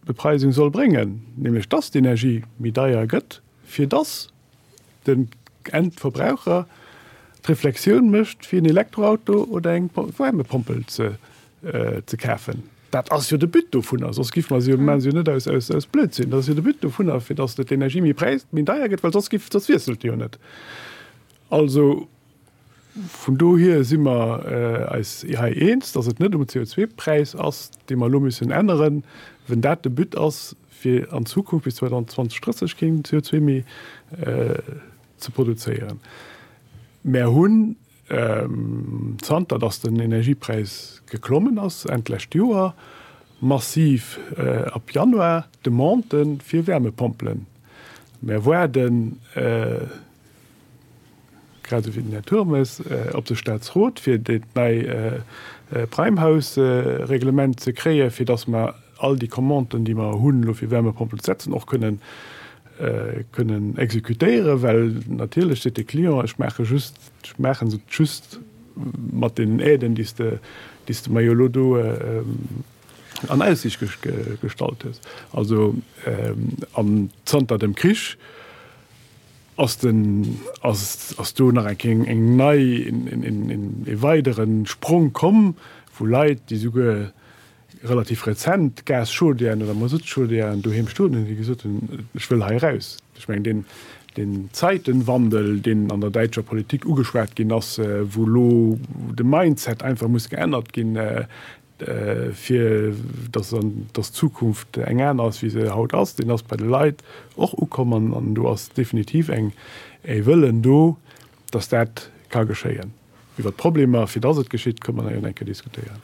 Bepreisung soll bréngen, nämlech dass d'Energie méi deier gëtt, fir dass den Endverbraucher d'Reflexioun mécht, fir en Elektroauto oder eng Wärmepompel ze kafen. Dat ass jo de But dovunner, soss géife mer se jo, maache se jo net aus Blödsinn. Dat ass jo de But dovunner, fir dass d'Energie méi deier gëtt, well soss géif, soss wiesselt se jo net. Also Vun dohier si mer eis hei eens, dass et net um CO2-Präis ass, dee mer elo müssen änneren, wenn dat de But ass, fir an Zukunft bis 2030 keen CO2 méi ze produzéieren. Mer hunn, zanter dass den Energiepräis geklommen ass Enn d'lescht Joer, massiv ab Januar Demandë fir Wärmepompelen. Mer waarden, grad esou wéi den Här Turmes, op de Staatsrot, fir dat nei Prime-House-Reglement ze kréien, fir datt mer all déi Commanden, déi mer hunn elo fir Wärmepompel ze setzen, och kënnen kënnen exekutéieren. Well natierlech seet de Client, ech maache just, ech maache se just mat deenen Aiden, déi s de, déi s de mer jo elo do an Aussicht gestallt hues. Also, an zanter dem Krich Ass den, ass, ass do nach eng Kéier eng nei, e weidere Sprong komm, wou Leit, déi souguer relativ rezent Gaschaudièren oder Masuttchaudièren doheem stoen hunn, déi gesot hunn, ech wëll hei eraus. Ech mengen, deen, deen Zeitenwandel, deen an der däitscher Politik ugeschwat ginn ass, wou elo de Mindset einfach muss geännert ginn, fir dass dass d'Zukunft eng aner ass, wéi se haut ass, deen ass bei de Leit och ukomm an an do ass definitiv eng e Wëllen do, dass dat ka geschéien. Iwwert d'Problemer, fir dass et geschitt, kënne mer nach eng Kéier diskutéieren.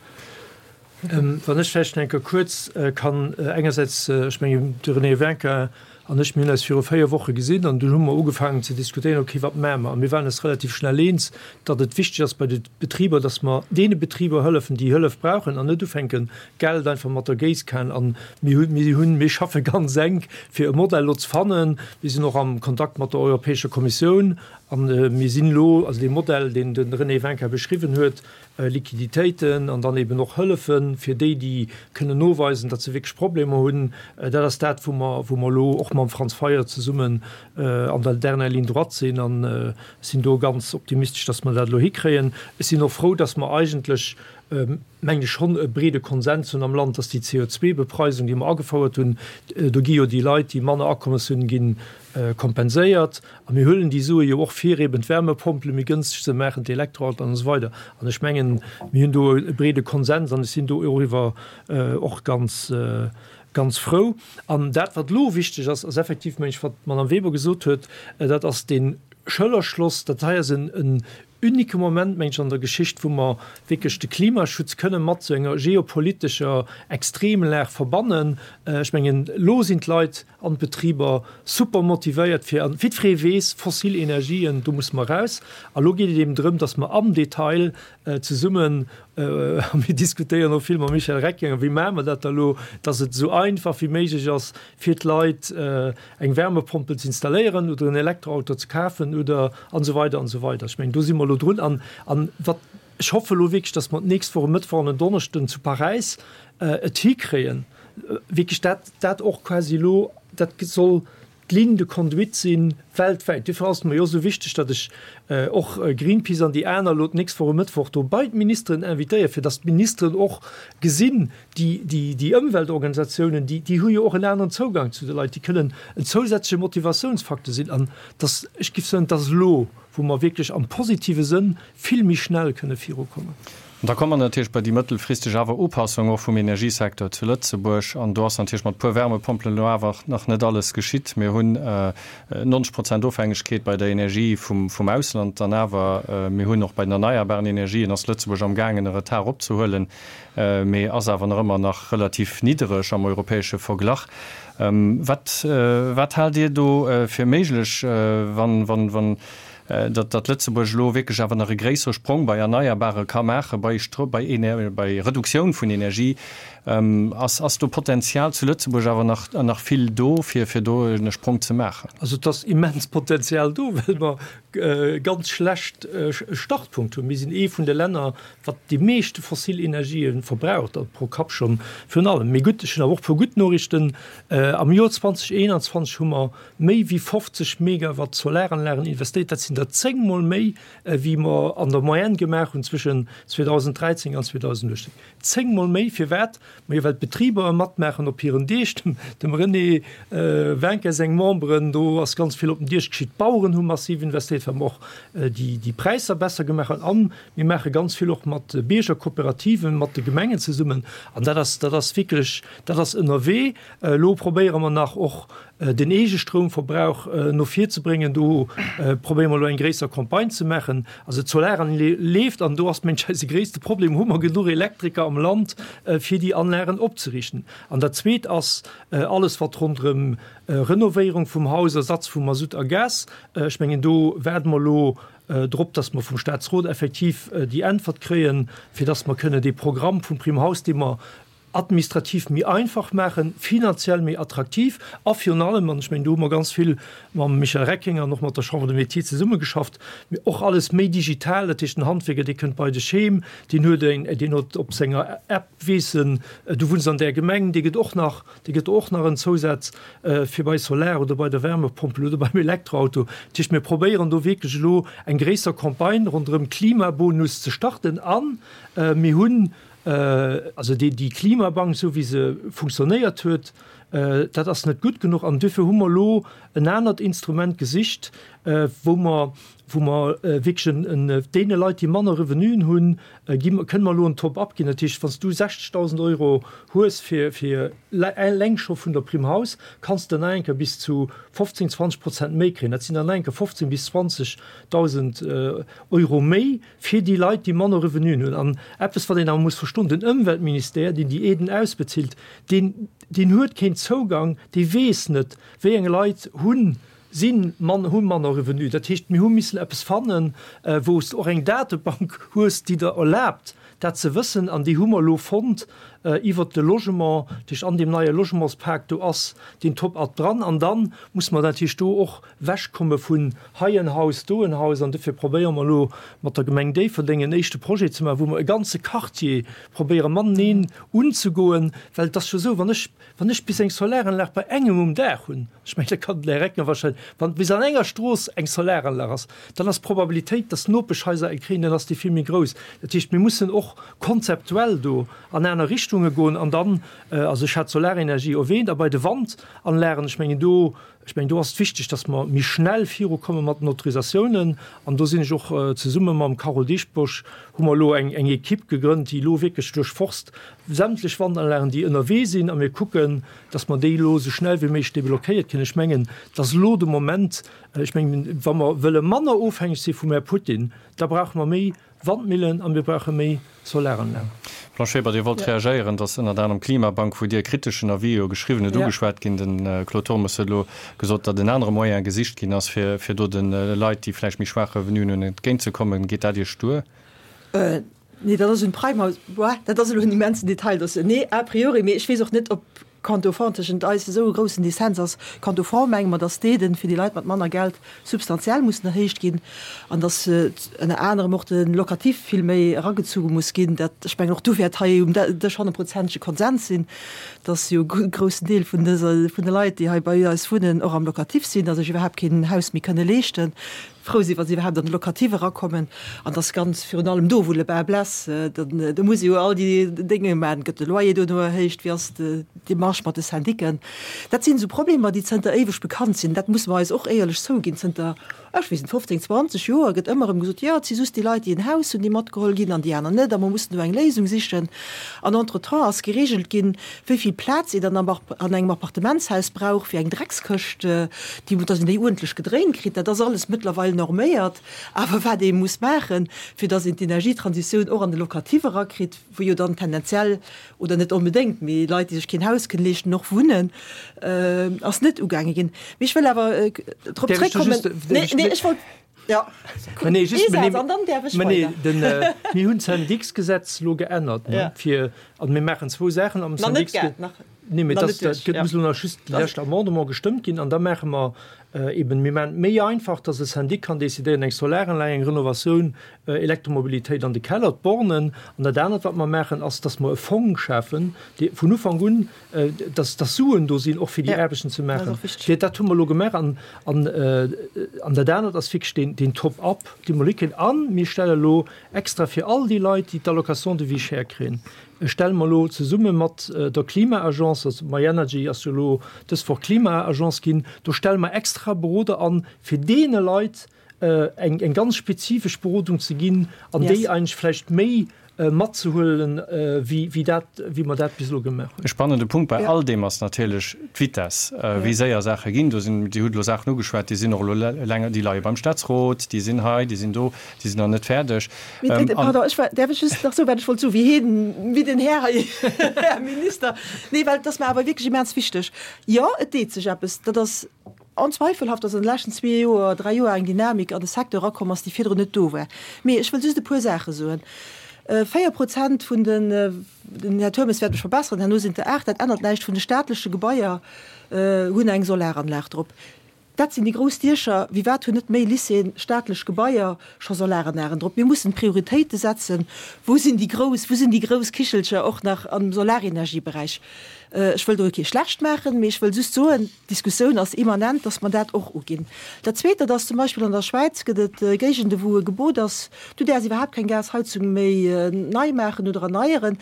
Wann ech vläicht nach eng Kéier kuerz kann engersäits, ech mengen, de René Winkin. an ech, mir hunn eis viru 4 Woche gesinn an dunn hu mer ugefaangen ze diskutéieren, okay, wat maache mer? A mir waren eis relativ schnell eens, datt et wichteg ass bei de Betriber, datt mer deene Betriber hëllefen, déi Hëllef brauchen an net ufänken, Geld einfach mat der Géisskan. An mir hunn, mir hunn, mir schaffe ganz enk, fir e Modell elo ze fannen. Mir sinn och am Kontakt mat der Europäescher Kommissioun an mir sinn elo, also dee Modell, deen de René Wincker beschriwwen huet, Liquiditéiten an dann eben och Hëllefe fir déi, déi kënnen noweisen, datt se wierklech Problemer hunn. Dat ass dat, wou mer, wou mer elo och mam Franz Fayot zesummen an der dernière ligne droite sinn. An ech sinn do ganz optimistesch, datt mer dat elo hikréien. Ech sinn och frou, datt mer eigentlech, mengen ech, schonn e breede Konsens hunn am Land, datt déi CO2-Bepreisung, déi mer agefouert hunn, do gi jo déi Leit, déi manner Akommes hunn, ginn kompenséiert. A mir huelen déi Sue jo och fir eben d'Wärmepompele méi gënsteg ze maachen, d'Elektroautoen an esou weider. An ech mengen, mir hunn do e breede Konsens an ech sinn do eriwwer och ganz, ganz frou. An dat, wat elo wichteg ass, ass effektiv, meng ech, wat d'Madame Weber gesot huet, dat ass dee Schëllerschloss. Dat hei ass en unique Moment, meng ech, an der Geschicht, wou mer wierklech de Klimaschutz kënne mat esou enger geopolitescher Extremlag verbannen. Ech mengen, elo sinn d'Leit an d'Betriber super motivéiert fir, an jiddweree weess, fossil Energien, do musse mer raus. A lo geet et eben drëm, datt mer am Detail zesummen, a mir diskutéieren och vill mam Michel Reckinger, wéi maache mer dat da lo, datt et esou einfach wéi méiglech ass fir d'Leit, eng Wärmepompel ze installéieren oder en Elektroauto ze kafen oder an esou weider an esou weider. Ech mengen, do si mer elo drun. An, an wat, ech hoffe elo wierklech, datt mer d'nächst Woch e Mëttwoch an en Donneschden zu Paräis et hikréien, wierklech dat, dat och quasi elo, dat soll d'Ligne de conduite si weltwäit. Duerfir ass et mer jo esou wichteg, datt ech och Greenpeace an déi aner elo d'nächst Woch e Mëttwoch do bei d'Ministeren invitéieren, fir datt d'Ministeren och gesinn, déi, déi, déi Ëmweltorganisatiounen, déi, déi hu jo och en aneren Zougang zu de Leit, déi kënnen en zousätzleche Motivatiounsfacteur sinn. An datt, ech géif soen, et ass elo, wou mer wierklech am positive Sënn vill méi schnell kënne virukommen.
An da komme mer natierlech bei déi mëttelfristeg awer Upassung och vum Energiesecteur zu Lëtzebuerg. An do ass natierlech mat puer Wärmepompelen elo awer nach net alles geschitt. Mir hunn 90 Prozent Ofhängegkeet bei der Energie vum Ausland dann awer. Mir hunn och bei den erneierbaren Energien ass Lëtzebuerg amgaangen e Retard opzehuelen, mee ass awer nach ëmmer nach relativ niddereg am europäesche Verglach. Wat, wat haalt Dir do fir méiglech, wann, wann, wann datt, datt Lëtzebuerg elo wierklech awer nach e gréissere Sprong bei Erneierbare ka maachen, bei Stro, bei Ener, bei Reduktioun vun Energie? Ass, ass do Potenzial zu Lëtzebuerg awer nach, nach vill do, fir, fir do e Sprong ze maachen?
Also et ass immens Potenzial do, well mer e ganz schlecht Startpunkt hunn. Mir sinn ee vun de Länner, wat déi meeschte fossil Energië verbraucht, also pro Kapp schonn virun allem. Mee gutt, ech hunn awer och e puer gutt Noriichten. Am Joer 2021 hu mer méi wéi 50 Megawatt Solaranlagen investéiert. Dat sinn der zéngmol méi, wéi mer an der Moyenne gemaach hunn zwëschen 2013 an 2018. Zéngmol méi! Firwat? Majo, well d'Betriber matmaachen op hiren Deeg. Dem René Wincker seng Memberen, do ass ganz vill op den Diech geschitt. D'Baueren hu massiv investéiert, well mer och déi Präisser besser gemaach hunn. An mir maache ganz vill och mat Biergerkooperativen, mat de Gemengen zesummen. An dat ass, dat ass wierklech, dat ass ënnerwee. Elo probéiere mer nach och den Eegestroumverbrauch no vir ze bréngen. Do probéiere mer elo eng gréisser Campagne ze maachen. Also d'Solaranle leeft an do ass mensch eise gréisste Problem, hu mer genuch Elektriker am Land fir déi Anlagen opzeriichten? An dat Zweet ass alles wat ronderëm Renovéierung vum Haus, Ersatz vu Masutt a Gas, ech mengen do waarde mer elo drop, datt mer vum Staatsrot effektiv déi Äntwert kréien, fir datt mer kënne dee Programm vum Prime Haus, dee mer administrativ méi einfach maachen, finanziell méi attraktiv a virun allem, an ech mengen, do hu mer ganz vill mam Michel Reckinger an och mat der Chambre des Métiers zesummegeschafft, och alles méi digital, dat heescht, den Handwierker, dee kënnt bei dech heem, deen huet eng, deen huet op senger App, weess en, du wunns an där Gemeng, dee gëtt och nach, dee gëtt och nach en Zousaz fir bei Solar oder bei der Wärmepompel oder beim Elektroauto. Dat heescht, mir probéieren do wierklech elo eng gréisser Campagne ronderëm Klimabonus ze starten a mir hunn, Also déi Klimabank, esou wéi se funktionéiert huet, dat ass net gutt genuch. An duerfir hu mer elo en anert Instrument gesicht, wou mer, wou mer wierklech en, deene Leit, déi manner Revenuen hunn, gi mer, kënne mer elo en Top-up ginn. Dat heescht, wann s du 60.000 Euro hues fir, fir eleng scho vun der Prime House, kanns de nach eng Kéier bis zu 15, 20 Prozent méi kréien. Dat sinn dann nach eng Kéier 15 bis 20.000 Euro méi. Fir déi Leit, déi manner Revenuen hunn. An eppes, wat een awer muss verstoen, Den Ëmweltministère, deen déi Aiden ausbezilt, deen, deen huet keen. Zougang, dee weess net, wéi eng Leit hunn, sinn mann, hu manner Revenu. Dat heescht, mir hu missen eppes fannen, wou s de och eng Datebank hues, déi der erlaabt, dat ze wëssen. An déi hu mer elo fonnt iwwert de Logement. Dat heescht, an deem neie Logementspak, do ass deen Top-up dran. An da muss mer natierlech do och wechkomme vun hei en Haus, do en Haus. An dofir probéiere mer elo mat der Gemeng Déifferdeng en éischte Projet ze maachen, wou mer e ganze Quartier probéiere mateneen unzegoen. Well et ass jo esou, wann ech, wann ech bis eng Solaranlag bei engem um Daach hunn, ech mengen, da kann den Här Reckinger wahrscheinlech, wann bis an enger Strooss eng Solaranlag ass, dann ass d'Probabilitéit, dass d'Nopeschhaiser eng kréien, dann ass déi vill méi grouss. Dat heescht, mir mussen och konzeptuell do an aner Richtunge goen. An dann, also ech hat d'Solarenergie erwähnt, a bei de Wandanlagen, ech mengen do, Ech mengen, do ass et wichteg, dass mer méi schnell virukomme mat den Autorisatiounen. An do sinn ech och zesumme mam Carole Dieschbourg, hu mer elo eng Equipe gegrënnt, déi elo wierklech duerchforst sämtlech Wandanlagen, déi ënnerwee sinn, a mir kucken, dass mer déi elo esou schnell wéi méiglech deblockéiert kréien. Ech mengen, et ass elo de Moment, ech mengen, wa mer wëlle manner ofhängeg si vum Här Putin, da brauche mer méi Wandmillen a mir brauche méi Solaranlagen.
Blanche Weber, Dir wollt reagéieren, dass ënnert anerem d'Klimabank, wou Dir e kriteschen Avis jo geschriwwen hutt, ugeschwat ginn. De Claude Turmes huet elo gesot, datt en anere Moyen gesicht ginn ass, fir fir do de Leit, déi vläicht méi schwaach Revenuen hunn, entgéintzekommen. Geet dat Iech duer?
Nee, dat ass un Prime House. Dat ass elo en immensen Detail. Nee, a priori, mee ech weess och net, ob Quant au fond tëschent eis esou e groussen Dissens ass. Quant au fond menge mer, dass d'Aiden fir déi Leit mat manner Geld substantiell mussen erhéicht ginn an dass ënner anerem och de Locatif vill méi eragezuge muss ginn. Dat, ech mengen, och do wäert hei um Dësch honnertprozentege Konsens sinn, dass jo e groussen Deel vun dëser, vun de Leit, déi hei bei eis wunnen, och am Locatif sinn a sech iwwerhaapt keen Haus méi kënne leeschten. frou sinn, wa si iwwerhaapt an de Locatif erakommen, an dass ganz virun allem do, wou le bas blesse, dann do muss ee jo all déi Dénge maachen, gëtt de Loyer dono erhéicht, wéi ass d'Demarche mat de Syndiquen? Dat sinn esou Problemer, déi zënter éiweg bekannt sinn. Dat musse mer eis och éierlech zouginn. Zënter, ech weess net, 15, 20 Joer gëtt ëmmer erëm gesot, jo, et si just déi Leit, déi en Haus hunn, déi matgeholl ginn an déi aner net, a mer mussen do eng Léisung sichen. An entretemps ass geregelt ginn, wéi vill Plaz een dann an engem Appartementshaus brauch fir eng Dreckskëscht, déi, dass een déi uerdentlech gedréint kritt. Dat ass alles mëttlerweil norméiert. Awer wat ee muss maachen, fir dass een d'Energietransitioun och an de Locatif erakritt, wou jo dann tendenziell, oder net onbedéngt, mee Leit, déi sech keen Haus kënnen leeschten, och wunnen, ass net ugaange ginn. Mee ech wëll awer drop zréckkommen. Nee, nee, ech wollt. Ja.
Nee, just, nee, an dann därf ech nee, den, äh, mir hunn d'Syndiksgesetz lo geännert ne, ja. fir an mir maachen zwou Saachen am Syndiksgesetz. Nee, mee das, das gëtt muss nach just déi lescht Amendement gestëmmt ginn an da maache mer äh, eben mir maachen méi einfach, dass e Syndic kann decidéieren eng Solaranlag, eng Renovatioun, äh, Elektromobilitéit an de Keller, d'Bornen. An dat anert wat mer maachen ass, dass mer e Fong schafen, dee vun Ufank un dass dass Suen do sinn, och fir déi Aarbechten ze maachen. Fir dat hu mer elo gemaach. An, an, an dat anert ass wierklech deen, deen Top-up, dee mer elo kréien. A mir stelle elo extra fir all déi Leit, déi d'Allocation de vie chère kréien, stelle mer elo zesumme mat der Klima-Agence, also myenergy ass jo elo dës Woch Klima-Agence ginn, do stelle mer extra Beroder an, fir deene Leit eng, eng ganz spezifesch Berodung ze ginn an déi eigentlech vläicht méi matzehuelen, wéi, wéi dat, wéi mer dat bis elo gemaach hunn.
E spannende Punkt bei all deem ass natierlech d'Vitesse, wéi séier Saache ginn. Do sinn, Dir hutt elo Saachen ugeschwat, déi sinn och elo länger, déi leie beim Staatsrot, déi sinn hei, déi sinn do, déi sinn nach net fäerdeg.
Pardon, ech war, däerf ech just nach soen, wat ech wollt soen, wéi hien, wéi den Här hei, Här Minister, nee, well et ass mer awer wierklech immens wichteg. Jo, et deet sech eppes, dat ass Onzweifelhaft, dass an de leschten zwee Joer, dräi Joer eng Dynamik an de Secteur erakomm ass, déi virdrun net do war. Mee ech wëll just e puer Saache soen. 4 Prozent vun den, den Här Turmes wäert mech verbesseren, herno sinn et der 8, dat ännert näischt, vun de staatleche Gebaier hunn eng Solaranlag drop. Dat sinn déi grouss Diecher. Wéi wat hunn net méi Lycéeën, staatlech Gebaier scho Solaranlagen drop? Mir mussen Prioritéite setzen. Wou sinn déi grouss, wou sinn déi grouss Kichelcher och nach am Solarenergieberäich? Ech wëll do kee schlecht maachen, mee ech wëll just soen, D'Diskussioun ass immanent, dass mer dat och uginn. Dat Zweet, dat ass zum Beispill an der Schwäiz gëtt et Géigende wou e Gebot ass, du däerfs iwwerhaapt keng Gasheizung méi nei maachen oder erneieren,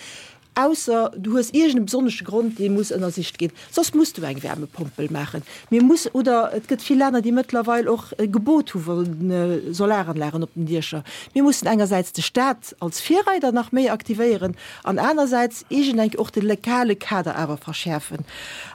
ausser du hues iergend e besonnesche Grond, dee muss ënnersicht ginn. Soss muss du eng Wärmepompel maachen. Mir muss, oder et gëtt vill Länner, déi mëttlerweil och e Gebot hu vu Solaranlagen op den Diecher. Mir mussen engersäits de Stat als Virreider nach méi aktivéieren an anersäits iergendeng och de legale Kader awer verschäerfen.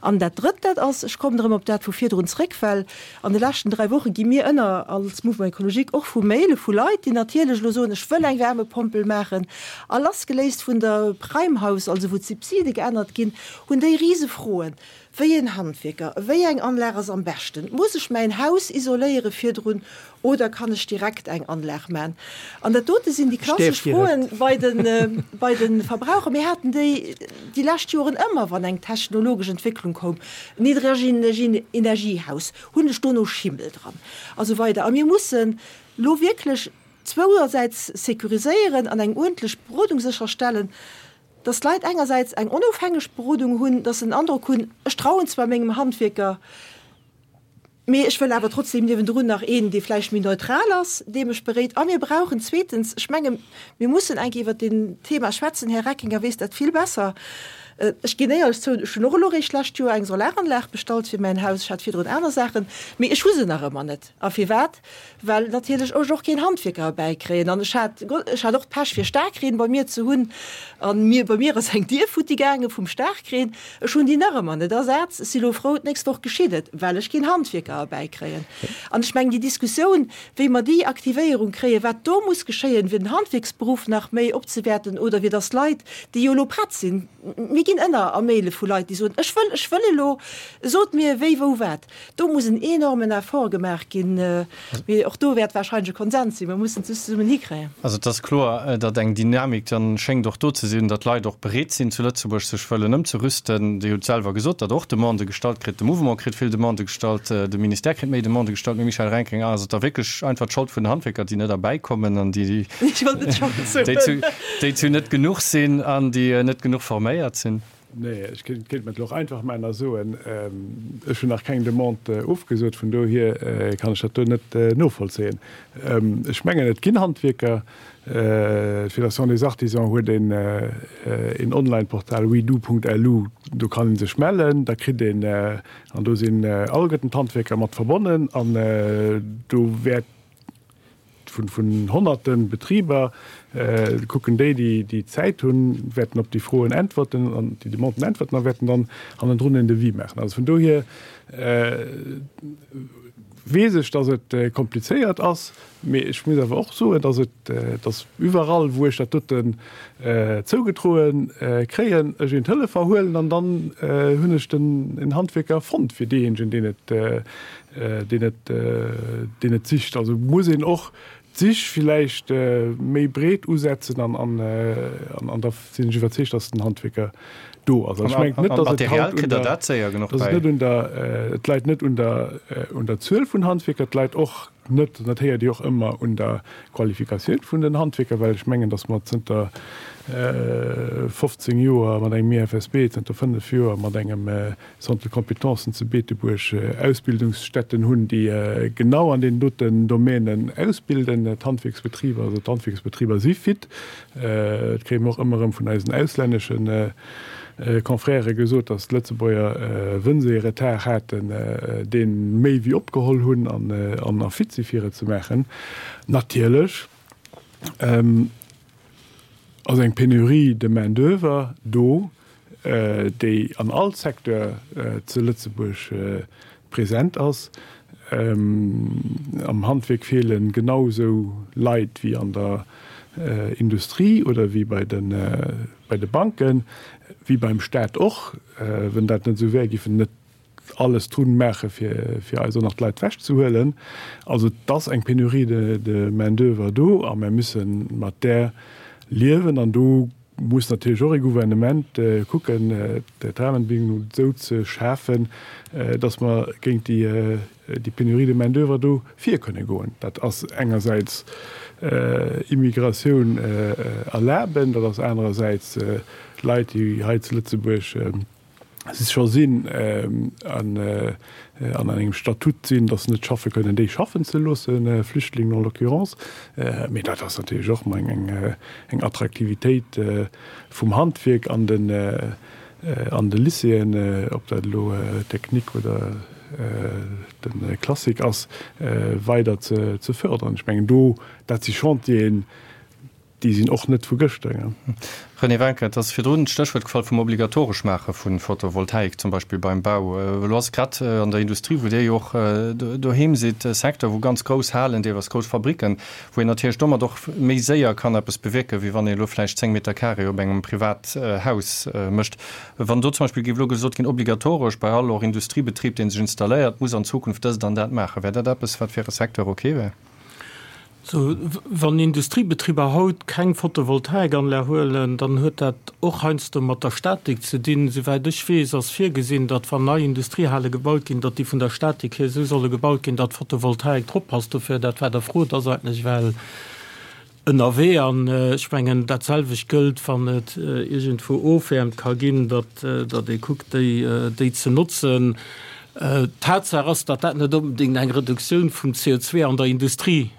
An dat Drëtt, dat ass, ech kommen erëm op dat vu virdrun zréck, well an de leschten dräi Woche gi mir ënner als Mouvement écologique och vu Maile vu Leit, déi natierlech elo soen, ech wëll eng Wärmepompel maachen, a lassgeléist vun der Prime House. Niedregenergiehaus, also wou d'Subside geännert ginn, hunn déi rise Froen, Wéi een Handwierker, wéi eng Anlag ass am beschten? Muss ech mäin Haus isoléiere virdrun oder kann ech direkt eng Anlag man? An dat dote sinn déi klassesch Froen bei de bei de Verbraucher. Mir haten déi déi lescht Joren ëmmer, wann eng technologesch Entwécklung koum, Niedregenergiehaus, hunn ech dono Schimmel dran a sou weider. A mir mussen elo wierklech zwouersäits sécuriséieren an eng uerdentlech Berodung sécherstellen, dass d'Leit engersäits eng onofhängeg Berodung hunn, dass se den Androck hunn, ech trauen zwar mengem Handwierker, mee ech wëll awer trotzdem niewendrun nach een, dee vläicht méi neutral ass, dee mech beréit. A mir brauchen zweetens, ech menge mir mussen eng Kéier iwwert deen Thema schwätzen, Här Reckinger weess dat vill besser, ech ginn éierlech zou, ech hunn och elo eréischt d'lescht Joer eng Solaranlag bestallt fir mäin Haus, ech hat virdrun aner Saachen, mee ech hu se nach ëmmer net. A firwat? Well natierlech ech och keen Handwierker erbäikréien. An ech hat, ech hat och d'Pech fir Staarkreen bei mir ze hunn. An mir, bei mir ass eng Dier futti gaange vum Staarkreen. Ech hunn déi nach ëmmer net ersat. Ech si lo frou, d'nächst Woch geschitt et, well ech keen Handwierker erbäikréien. An ech mengen, déi Diskussioun, wéi mer déi Aktivéierung kréien, wat do muss geschéien, fir den Handwierksberuff nach méi opzewäerten oder fir dass Leit, déi jo elo prett sinn, mir ginn ënner a Maile vu Leit, déi soen, ech wëll, ech wëll elo, sot mir wéi, wou, wat. Do muss en enormen Effort gemaach ginn, mee och do wäert wahrscheinlech e Konsens sinn. Mir mussen et just zesummen hikréien.
Also et ass kloer, datt eng Dynamik dann schéngt och do ze sinn, datt Leit och bereet sinn zu Lëtzebuerg sech wëllen ëmzerüsten. Dir hutt selwer gesot, datt Der och Demandë gestallt kritt. De Mouvement kritt vill Demandë gestallt, de Ministère kritt méi Demandë gestallt. Mme Michèle Reckinger, ass et da wierklech einfach d'Schold vun den Handwierker, déi net erbäikommen an déi déi zu net genuch sinn an déi net genuch forméiert sinn?
Nee, ech kéint mer et elo och einfach maachen a soen, ech hunn nach keng Demande ofgesot, vun dohier kann ech dat do net novollzéien. Ech mengen, et ginn Handwierker, d'Fédération des Artisans huet een Online-Portal wedo.lu, do kann ee sech mellen, da kritt een, an do sinn alleguerten d'Handwierker mat verbonnen an do wäert, vun honnerte Betriber, kucken déi, déi Zäit hunn, wäerten op déi Froen äntwerten an déi Demanden äntwerten a wäerten dann hannendrun en Devis maachen. Also vun dohier weess ech, dass et komplizéiert ass, mee ech muss awer och soen, dass et, dass iwwerall, wou ech dat doten zougedroe kréien, ech een Telefon huelen an dann hunn ech den en Handwierker fonnt fir deejéinegen, deen et deen et, deen et sicht. Also muss een och d'Sich villäicht méi breet usetzen an, an, an da sinn ech iwwerzeegt, dass den Handwierker do ass. Also ech mengen net, dass et haut un der, dass et net un der, et läit net un der, un der Zuel vun Handwierker, et läit och net, an dat héiert Dir och ëmmer, un der Qualifikatioun vun den Handwierker, well ech mengen, dass mer zënter 15 Joer mat engem IFSB, zënter 5 Joer mat engem Centre de compétences zu Beetebuerg Ausbildungsstätten hunn, déi genau an deenen doten Domänen ausbilden, d'Handwierksbetriber. Also d'Handwierksbetriber si fit. Dat kréie mer och ëmmer erëm vun eisen auslännesche Confrèrë gesot, datt d'Lëtzebuerger, wënn se ee Retard haten, dee méi wéi opgeholl hunn an a fit si fir et ze maachen. Natierlech ass eng Pénurie de main d'oeuvre do, déi an all Secteur zu Lëtzebuerg present ass. Am Handwierk feele genau esou Leit wéi an der Industrie oder wéi bei de Banken, wéi beim Staat och. Wenn dat net esou wär, géif en net alles drun maache fir fir eis och nach d'Leit wech ze huelen. Also et ass eng Pénurie de de main d'oeuvre do a mer müsse mat där liewen an do muss natierlech och ee Gouvernement kucken d'Rahmenbedingungen esou ze schafen, datt mer géint déi déi Pénurie de main d'oeuvre do vir kënne goen. Dat ass engersäits Immigratioun erlaben, dat ass anerersäits Leit déi hei zu Lëtzebuerg scho sinn an an engem Statut sinn, datt se net schaffe kënnen, déi schaffen ze loossen, Flüchtlingen en l'occurrence. Mee dat ass natierlech och emol eng eng Attraktivitéit vum Handwierk an den an de Lycéeën, ob dat elo Technique oder de Classique ass, weider ze ze fördern. Ech mengen do, dat si Chantieren,. déi sinn och net vu gëschter.
René Wencker, Et ass virdrun d'Stéchwuert gefall vum obligatoresch Maache vu Photovoltaik, zum Beispill beim Bau. Elo ass et grad an der Industrie, wou Dir jo och doheem sidd, e Secteur, wou ganz grouss Halen, deelweis grouss Fabricken, wou een natierlech domat och méi séier kann eppes bewierken, wéi wann een elo vläicht 10 Meter carré op engem Privathaus mécht. Wann do zum Beispill géif elo gesot ginn, obligatoresch bei all och Industriebetrib, dee sech installéiert, muss an Zukunft dëst an dat maachen, wär dat eppes, wat fir e Secteur ok wär?
Sou, wann Industriebetriber haut keng Photovoltaikanlag huelen, dann huet dat och heiansdo mat der Statik ze dinn. Souwäit ech weess, ass virgesinn, datt wann nei Industriehale gebaut ginn, datt déi vun der Statik hier esou solle gebaut ginn, datt Photovoltaik drop passt. Dofir, dat wat Der frot, ass eigentlech well ënnerwee. An ech mengen, dat selwecht gëllt, wann et iergendwou Ofwäermt ka ginn, datt ee kuckt, déi ze notzen. Tatsaach ass, datt dat net onbedéngt eng Reduktioun vum CO2 an der Industrie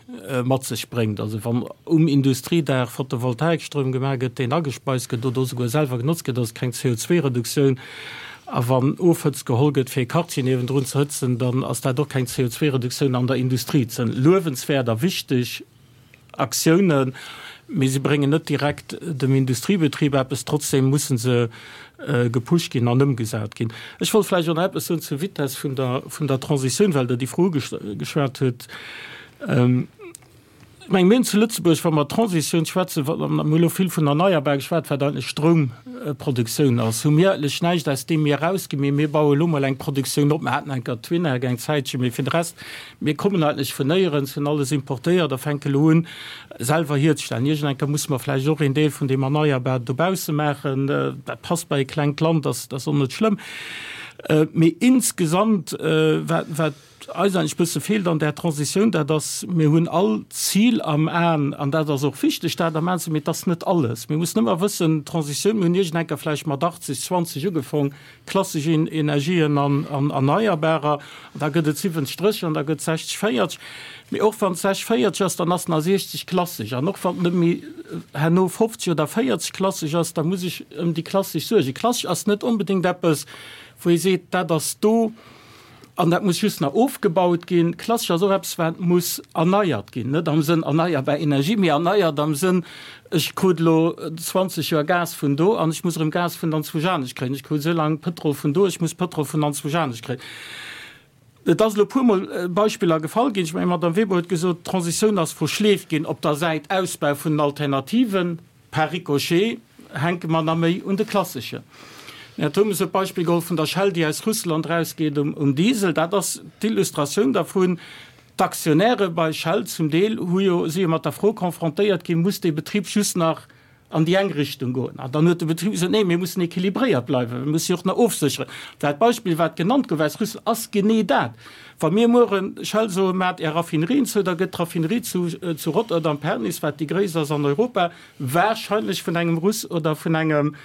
mat sech bréngt. Also wann um Industriedaach Photovoltaikstroum gemaach gëtt, deen agespeist gëtt oder esouguer selwer genotzt gëtt, ass et keng CO2-Reduktioun. A wann Ofhëtzt geholl gëtt, fir e Quartier niewendrun ze hëtzen, dann ass dat och keng CO2-Reduktioun an der Industrie. Et sinn luewenswäert a wichteg Aktiounen, mee se bréngen net direkt dem Industriebetrib eppes. Trotzdem musse se gepusht ginn an ëmgesat ginn. Ech wollt vläicht och nach eppes soen zur Vitess vun der, vun der Transitioun, well Der déi Fro ugeschwat hutt. Ech mengen, mir hunn zu Lëtzebuerg, wa mer Transitioun schwätzen, wa mer elo vill vun erneierbar geschwat, wat eigentlech Stroumproduktioun ass, hu mir eigentlech näischt, aus deem mir erausginn, mee mir baue elo mol eng Produktioun op. Mir haten eng Kéier d'Winag eng Zäitchen, mee fir de Rest, Mir kommen eigentlech vun néierens, hunn alles importéiert a fänke elo un, selwer hierzestellen. Iergend eng Kéier musse mer vläicht och een Deel vun deem Erneierbaren dobausse maachen. Dat passt bei e klengt Land, dat ass och net schlëmm. Mee insgesamt, wat, wat eis eigentlech e bësse feelt an där Transitioun, dat ass, mir hunn all d'Zil am Aen, an dat ass och wichteg, dat am Aen ze hunn, mee et ass net alles. Mir mussen ëmmer wëssen, d'Transitioun, mir hunn iergend eng Kéier vläicht mat 80, 20 ugefong, Klassesch Energien an Erneierbarer, an da gëtt et 70, 30 an da gëtt 60, 40. Mee och wann et 60, 40 ass, dann ass nach 60 klassesch. An och wann et net méi herno 50 oder 40 klassesch ass, da muss ech ëm déi klassesch suergen. Klassesch ass net onbedéngt eppes, wou ee seet, dat ass do. An dat muss just nach ofgebaut ginn. Klassesch ass och eppes, wat muss erneiert ginn. Net am Sënn erneierbar Energie, mee erneiert am Sënn, ech krut elo 20 Joer Gas vun do an ech muss erëm Gas vun anzwousch anescht kréien. Ech krut esou laang Pëtrol vun do, ech muss Pëtrol vun anzwousch anescht kréien. Et ass elo e puermol Beispiller gefall ginn. Ech mengen, d'Madame Weber huet gesot, d'Transitioun ass verschleeft ginn op der Säit Ausbau vun den Alternativen. Par ricochet hänke mer nach méi un de klasseschen. Den Här Turmes huet d'Beispill geholl vun der Shell, déi aus Russland erausgeet um Diesel. Dat ass d'Illustratioun dervun. D'Aktionäre bei Shell zum Deel hu jo, si jo mat der Fro confrontéiert ginn, Muss dee Betrib just nach an déi eng Richtung goen? An dann huet de Betrib gesot, Nee, mir mussen équilibréiert bleiwen, mir musse jo och nach ofsécheren. Dat Beispill, wat genannt gouf aus Russland, ass genee dat. Wa mir mueren Shell soen, Maacht Är Raffinerien zou, da gëtt d'Raffinerie zu Rotterdam, Pernis, wat déi gréisst ass an Europa, wahrscheinlech vun engem Russ oder vun engem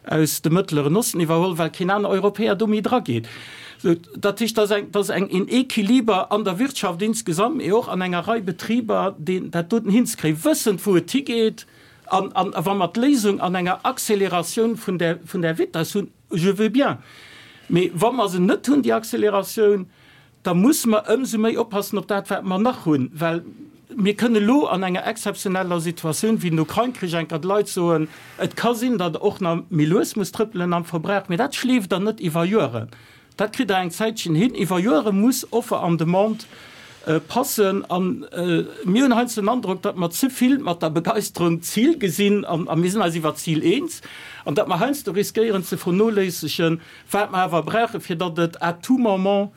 aus dem Mëttleren Osten iwwerholl, well keen aner Europäer do méi drageet. Dat heescht, dat ass eng een Equiliber an der Wirtschaft insgesamt, mee och an enger Rei Betriber, deen dat doten hinzekréien, wëssend wou et higeet. An wa mer d'Léisung an enger Acceleratioun vun där Vitess hunn, Je veux bien. Mee wa mer se net hunn, déi Acceleratioun, da musse mer ëmsou méi oppassen op dat, wat mer nach hunn. Well mir kënnen elo an enger exzeptioneller Situatioun wéi den Ukrain-Krich eng Kéier de Leit soen, Et ka sinn, datt Der och nach méi lues musst trëppelen am Verbrauch, mee dat schleeft Der net iwwer Joeren. Dat kritt Der eng Zäitchen hin. Iwwer Joere muss Offer an Demande passen. A mir hunn heiansdo den Androck, datt mer ze vill mat der Begeisterung d'Zil gesinn, a mir sinn eis iwwer d'Zil eens, an datt mer heiansdo riskéieren ze vernoléissegen, wat mer awer brauchen, fir datt et à tout moment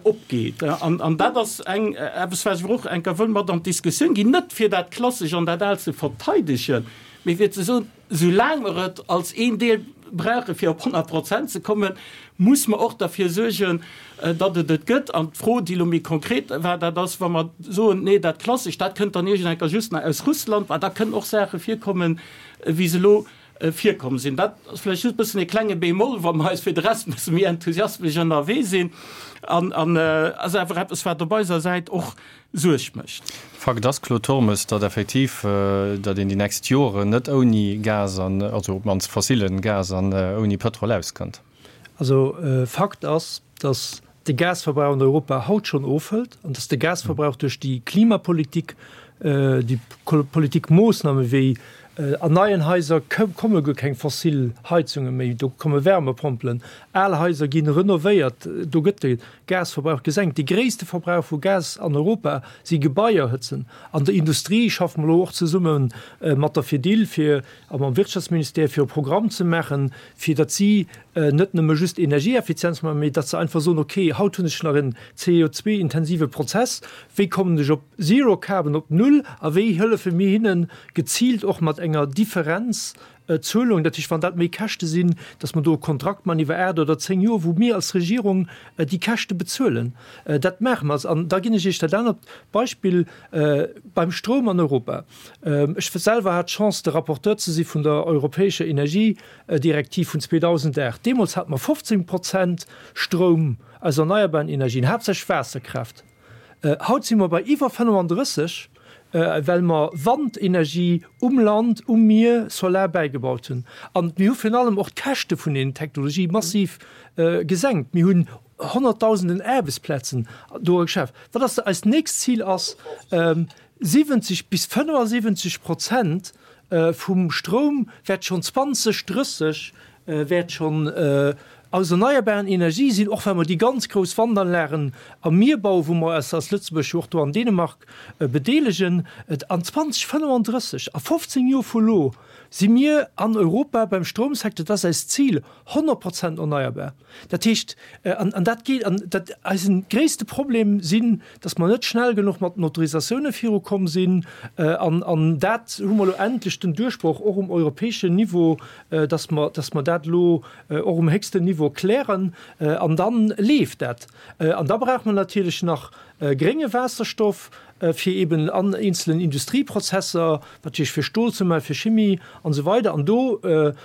opgeet. An dat ass eng eppes, wat ech awer och eng Kéier wëll mat an d'Diskussioun ginn, net fir dat Klassesch an dat Aalt ze verteidegen, mee fir ze soen, Soulaang mer et als een Deel brauche fir op 100 Prozent ze kommen, muss mer och derfir suergen, datt et et gëtt. An d'Fro, déi elo méi konkret war, dat ass, wa mer soen, nee, dat Klassescht, dat kënnt dann iergend eng Kéier just nach aus Russland, well da kënnen och Saache virkommen, wéi se elo virkomm sinn. Dat ass vläicht just e bëssen e klenge Bémol, wa mer eis fir de Rest e bësse méi enthusiasmesch ënnerwee sinn. An ass awer eppes, wat op eiser Säit och Suerg mécht.
Fakt ass, Claude Turmes, datt effektiv, datt een déi nächst Joren net ouni Gas an, also op d'mannst fossilen Gas an ouni Pëtrol auskënnt.
Also Fakt ass, datt de Gasverbrauch an Europa haut schonn ofhëlt an datt de Gasverbrauch duerch déi Klimapolitik. déi Politikmoossname wéi an neien Haiser komme guer keng fossil Heizunge méi, do komme Wärmepompelen, al Haiser gi renovéiert, do gëtt de Gasverbrauch gesenkt. De gréisste Verbrauch vu Gas an Europa si Gebaier hëtzen. An der Industrie schaffe mer elo och zesumme mat der Fedil fir a mam Wirtschaftsministère fir e Programm ze maachen, fir datt si net nëmme just Energieeffizienz maachen, mee datt se einfach soen, okay, haut hunn ech nach en CO2-intensive Prozess, wéi kommen ech op Zero Carbon, op Null, a wéi hëllefe mir hinnen geziilt och mat enger Differenzzuelung, dat heescht, wann dat méi Käschte sinn, datt mer do e Kontrakt maachen iwwer 8 oder 10 Joer, wou mir als Regierung déi Käschte bezuelen. Dat maache mer. An da ginn ech Iech dat anert Beispill beim Stroum an Europa. Ech selwer hat d'Chance, de Rapporteur ze si vun der europäescher Energiedirektiv vun 2008. Deemools hate mer 15 Prozent Stroum aus erneierbaren Energien, haaptsächlech Waasserkraaft. Haut si mer bei iwwer 35, well mer Wandenergie um Land, um Mier, Solar bäigebaut hunn. An mir hu virun allem och d'Käschte vun deenen Technologië massiv gesenkt. Mir hunn Honnertdausenden Aarbechtsplazen do geschaf. Wat ass eist nächst Zil? Ass 70 bis 75 Prozent vum Stroum wäert schonn 2030 wäert schonn aus erneierbaren Energie sinn, och wa mer déi ganz grouss Wandanlagen am Mier bauen, wou mer eis als Lëtzebuerg jo och do an Dänemark bedeelegen. An 2035, a 15 Joer vu lo, si mir an Europa beim Stroumsecteur, dat ass eist Zil, 100 Prozent erneierbar. Dat heescht, an dat geet, an dat eisen gréisste Problem sinn, datt mer net schnell genuch mat den Autorisatioune virukomm sinn. An, an dat hu mer elo endlech den Duerchbroch och um europäeschen Niveau, datt mer, datt mer dat elo och um héchsten Niveau klären. An da leeft dat. An da brauche mer natierlech nach grénge Waasserstoff, fir eben an eenzelen Industrieprozesser, natierlech fir Stol ze maachen, fir Chimie an esou weider. An do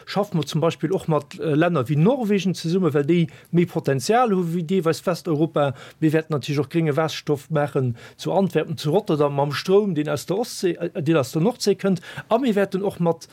schaffe mer zum Beispill och mat Länner wéi Norwegen zesummen, well déi méi Potenzial hu wéi deelweis Westeuropa. Mir wäerten natierlech och grénge Waasserstoff maachen zu Antwerpen, zu Rotterdam mam Stroum, deen aus der Ostsee, deen aus der Nordsee kënnt. A mir wäerten och mat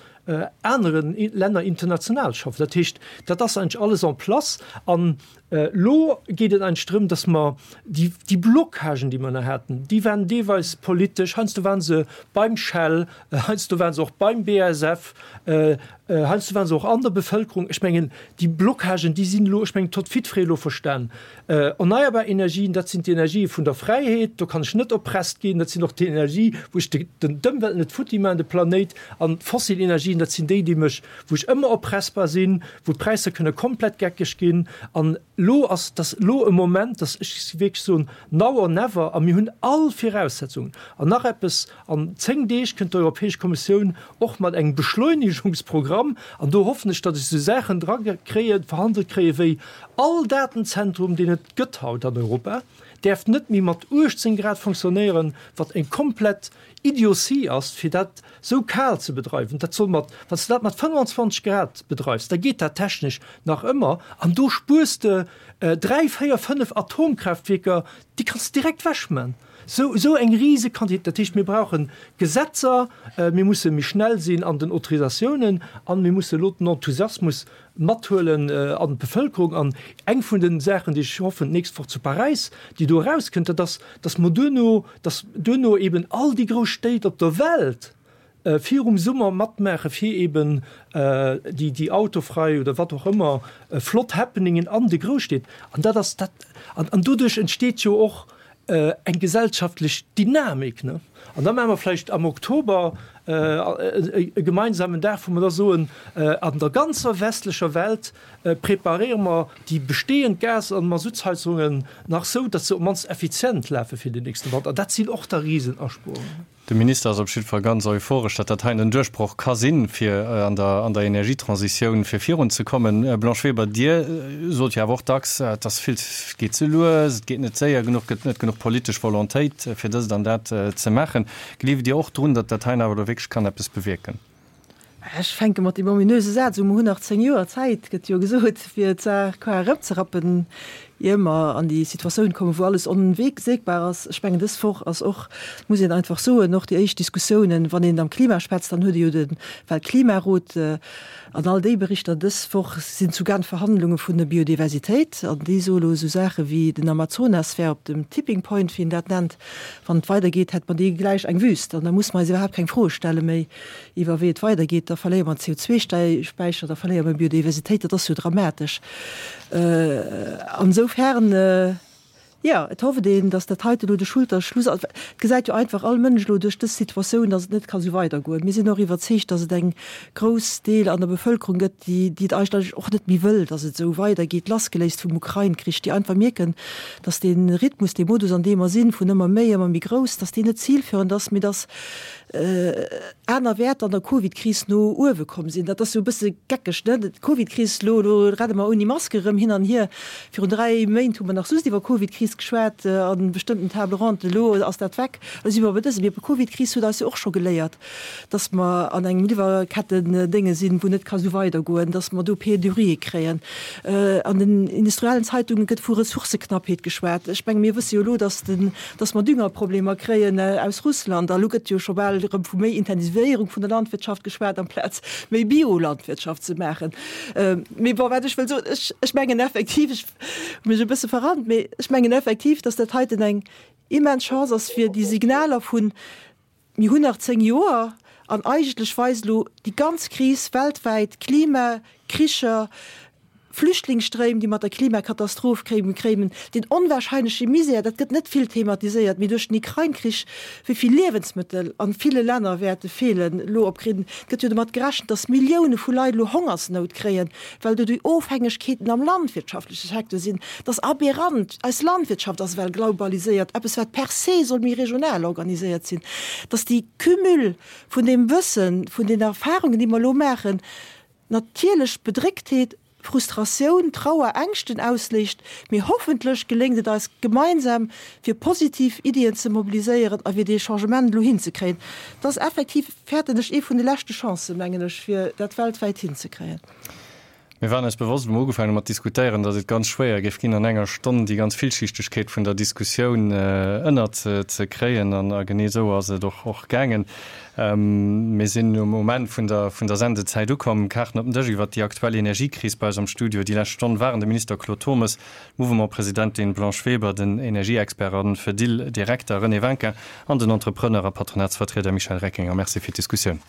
anere Länner international schaffen. Dat heescht, dat ass eigentlech alles en place. An Elo geet et eigentlech drëm, datt mer déi, déi Blockagen, déi mer nach haten, déi waren deelweis politesch, heiansdo waren se beim Shell, heiansdo waren se och beim BASF, heiansdo waren se och an der Bevëlkerung. Ech mengen, déi Blockagen, déi sinn elo, ech mengen, d'hott jiddweree elo verstan. Erneierbar Energien, dat sinn d'Energië vun der Fräiheet, do kann ech net oppresst ginn, dat sinn och déi Energie, wou ech d'Ëmwelt net futti maachen, de Planéit. An d'fossil Energien, dat sinn déi, déi mech, wou ech ëmmer oppressbar sinn, wou d'Präisser kënne komplett geckeg ginn. An elo ass, dass elo e Moment, dass ech wierklech soen, now or never, a mir hunn all Viraussetzungen. An nach eppes, An 10 Deeg kënnt d'Europäesch Kommissioun och mat engem Beschleunigungsprogramm, an do hoffen ech, datt ech esou Saachen dra kréien, verhandelt kréien, wéi all Datenzentrum, deen et gëtt haut an Europa, däerf net méi mat 18 Grad fonctionnéieren, wat eng komplett Idiotie ass, fir dat sou kal ze bedreiwen. Dat soll mat, wann s de dat mat 25 Grad bedreifs, da geet dat technesch nach ëmmer an do spuers de 3, 4, 5 Atomkraaftwierker, déi kanns de direkt wechman. Sou, sou eng rise Quantitéit. Dat heescht, mir brauche Gesetzer, mir musse méi schnell sinn an den Autorisatiounen an mir musse elo den Enthusiasmus mathuelen an d'Bevëlkerung. An eng vun de Saachen, déi ech hoffen, d'nächst Woch zu Paräis, déi do erauskënnt, dat ass, dass mer duerno, dass duerno eben all déi grouss Stéit op der Welt virum Summer matmaache fir eben déi, déi autofrei oder wat och ëmmer flott Happeningen an de Grousstied. An dat ass dat, an, an doduerch entsteet jo och eng gesellschaftlech Dynamik, ne? An da maache mer vläicht am Oktober e gemeinsamen Dag, wou mer da soen, an der ganzer westlecher Welt preparéiere mer déi bestehend Gas an Masuttsheizungen nach sou, datt se op d'mannst effizient lafe fir den nächste Wanter. An dat sinn och da Risenaspuerungen.
De Minister ass op jidde Fall ganz euphoresch, datt dat heien en Duerchbroch ka sinn, fir an der an der Energietransitioun fir virun ze kommen. Blanche Weber, Dir sot jo awer och dacks, et ass vill, et geet ze lues, et geet net séier genuch, et gëtt net genuch politesch Volontéit, fir dëst an dat ze maachen. Gleeft Dir och drun, datt dat heien awer elo wierklech kann eppes bewierken?
Ech fänke mat deem ominöse Saz u, Mer hunn nach 10 Joer Zäit, gëtt jo gesot, fir d'Saach qua erëmzerappen. Ier mer an déi Situatioun kommen, wou alles onwegseegbar ass. Ech mengen, dës Woch ass och, muss een einfach soen, och déi éischt Diskussiounen, wann een am Klima schwätzt, dann huet ee jo de Weltklimarot an all déi Berichter. Dës Woch sinn zu Genf Verhandlunge vun der Biodiversitéit an déi soe lo esou Saache wéi, den Amazonas wär op dem Tipping Point, wéi een dat nennt. Wann et weidergeet, hätt mer dee gläich eng Wüst an da musse mer eis iwwerhaapt keng Froe stelle méi iwwer wéi et weidergeet. Da verléiere mer CO2-Späicher, da verléiere mer Biodiversitéit. Dat ass jo dramatesch. An esoufern, jo, et hofft een, datt dat heite elo de Schulterschluss ass. Et gesäit jo einfach all Mënsch elo duerch dës Situatioun, datt et net ka sou weidergoen. Mir sinn och iwwerzeegt, datt et eng grouss Deel an der Bevëlkerung gëtt, déi, déi et eigentlech och net méi wëll, datt et esou weidergeet, lassgeléist vum Ukrain-Krich, déi einfach mierken, datt dee Rhythmus, dee Modus, an deem mer sinn, vun ëmmer méi, ëmmer méi grouss, datt deen net zilführend ass, mee datt aner Wäerter an der Covid-Kris no uewe komm sinn. Dat ass jo e bësse geckeg, ne? D'Covid-Kris, elo, elo renne mer ouni Maske erëm hin an hier. Virun 3 Méint hu mer nach just iwwer Covid-Kris geschwat a bestëmmten Table rondes, elo ass dat weg. Elo si mer bei dësem. Mee d'Covid-Kris huet eis jo och scho geléiert, dass mer an engem Liwwerketten-Dénge sinn, wou net ka sou weidergoen, dass mer do Pénurië kréien. An den industriellen Zeitunge gëtt vu Ressourcëknappheet geschwat. Ech menge mir wësse jo elo, dass den dass mer Düngerproblemer kréien aus Russland. A lo gëtt jo scho bal erëm vu méi Intensivéierung vun der Landwirtschaft geschwat, amplaz méi Biolandwirtschaft ze maachen. Mee bon, wat ech wëll soen, ech, ech mengen effektiv, ech hu mech e bësse verrannt, mee ech mengen effektiv, dass dat heiten eng immens Chance ass, fir déi Signaler vun, Mir hunn nach 10 Joer an eigentlech weist elo déi ganz Kris weltwäit, Klima, Kricher, Flüchtlingsstréim, déi mat der Klimakatastroph kéimen, deen onwahrscheinleche Misär, dat gëtt net vill thematiséiert, mee duerch den Ukrain-Krich, wéi vill Liewensmëttel an ville Länner wäerte feelen elo op Kri. Et gëtt jo domat gerechent, datt Millioune vu Leit elo Hongersnout kréien, well do déi Ofhängegkeeten am landwirtschaftleche Secteur sinn. Dat ass aberrant. Eis Landwirtschaft ass ewell globaliséiert, eppes wat per se soll méi regional organiséiert sinn. Datt déi Cumul vun deem Wëssen, vun den Erfahrungen, déi mer elo maachen, natierlech Bedrécktheet, Frustratioun, Trauer, Ängschten ausléist, mee hoffentlech geléngt et eis gemeinsam, fir positiv Iddien ze mobiliséieren a fir dee Changement elo hinzekréien. Dat ass effektiv, fäerten ech, ee vun de leschte Chancen, mengen ech, fir dat weltwäit hinzekréien.
Mir waren eis bewosst, wou mer ugefaangen hu mat diskutéieren, datt et ganz schwéier géif ginn, an enger Stonn déi ganz Villschichtegkeet vun der Diskussioun ënnerzekréien. An genee esou ass et och gaangen. Mir sinn um Enn vun der vun der Sendezäit ukomm. Kaarten op den Dësch iwwert déi aktuell Energiekris bei eis am Studio déi lescht Stonn waren de Minister Claude Turmes, d'Mouvement-Presidentin Blanche Weber, den Energieexpert a Fedil-Direkter René Winkin an den Entrepreneur a Patronatsvertrieder Michel Reckinger. Merci fir d'Diskussioun.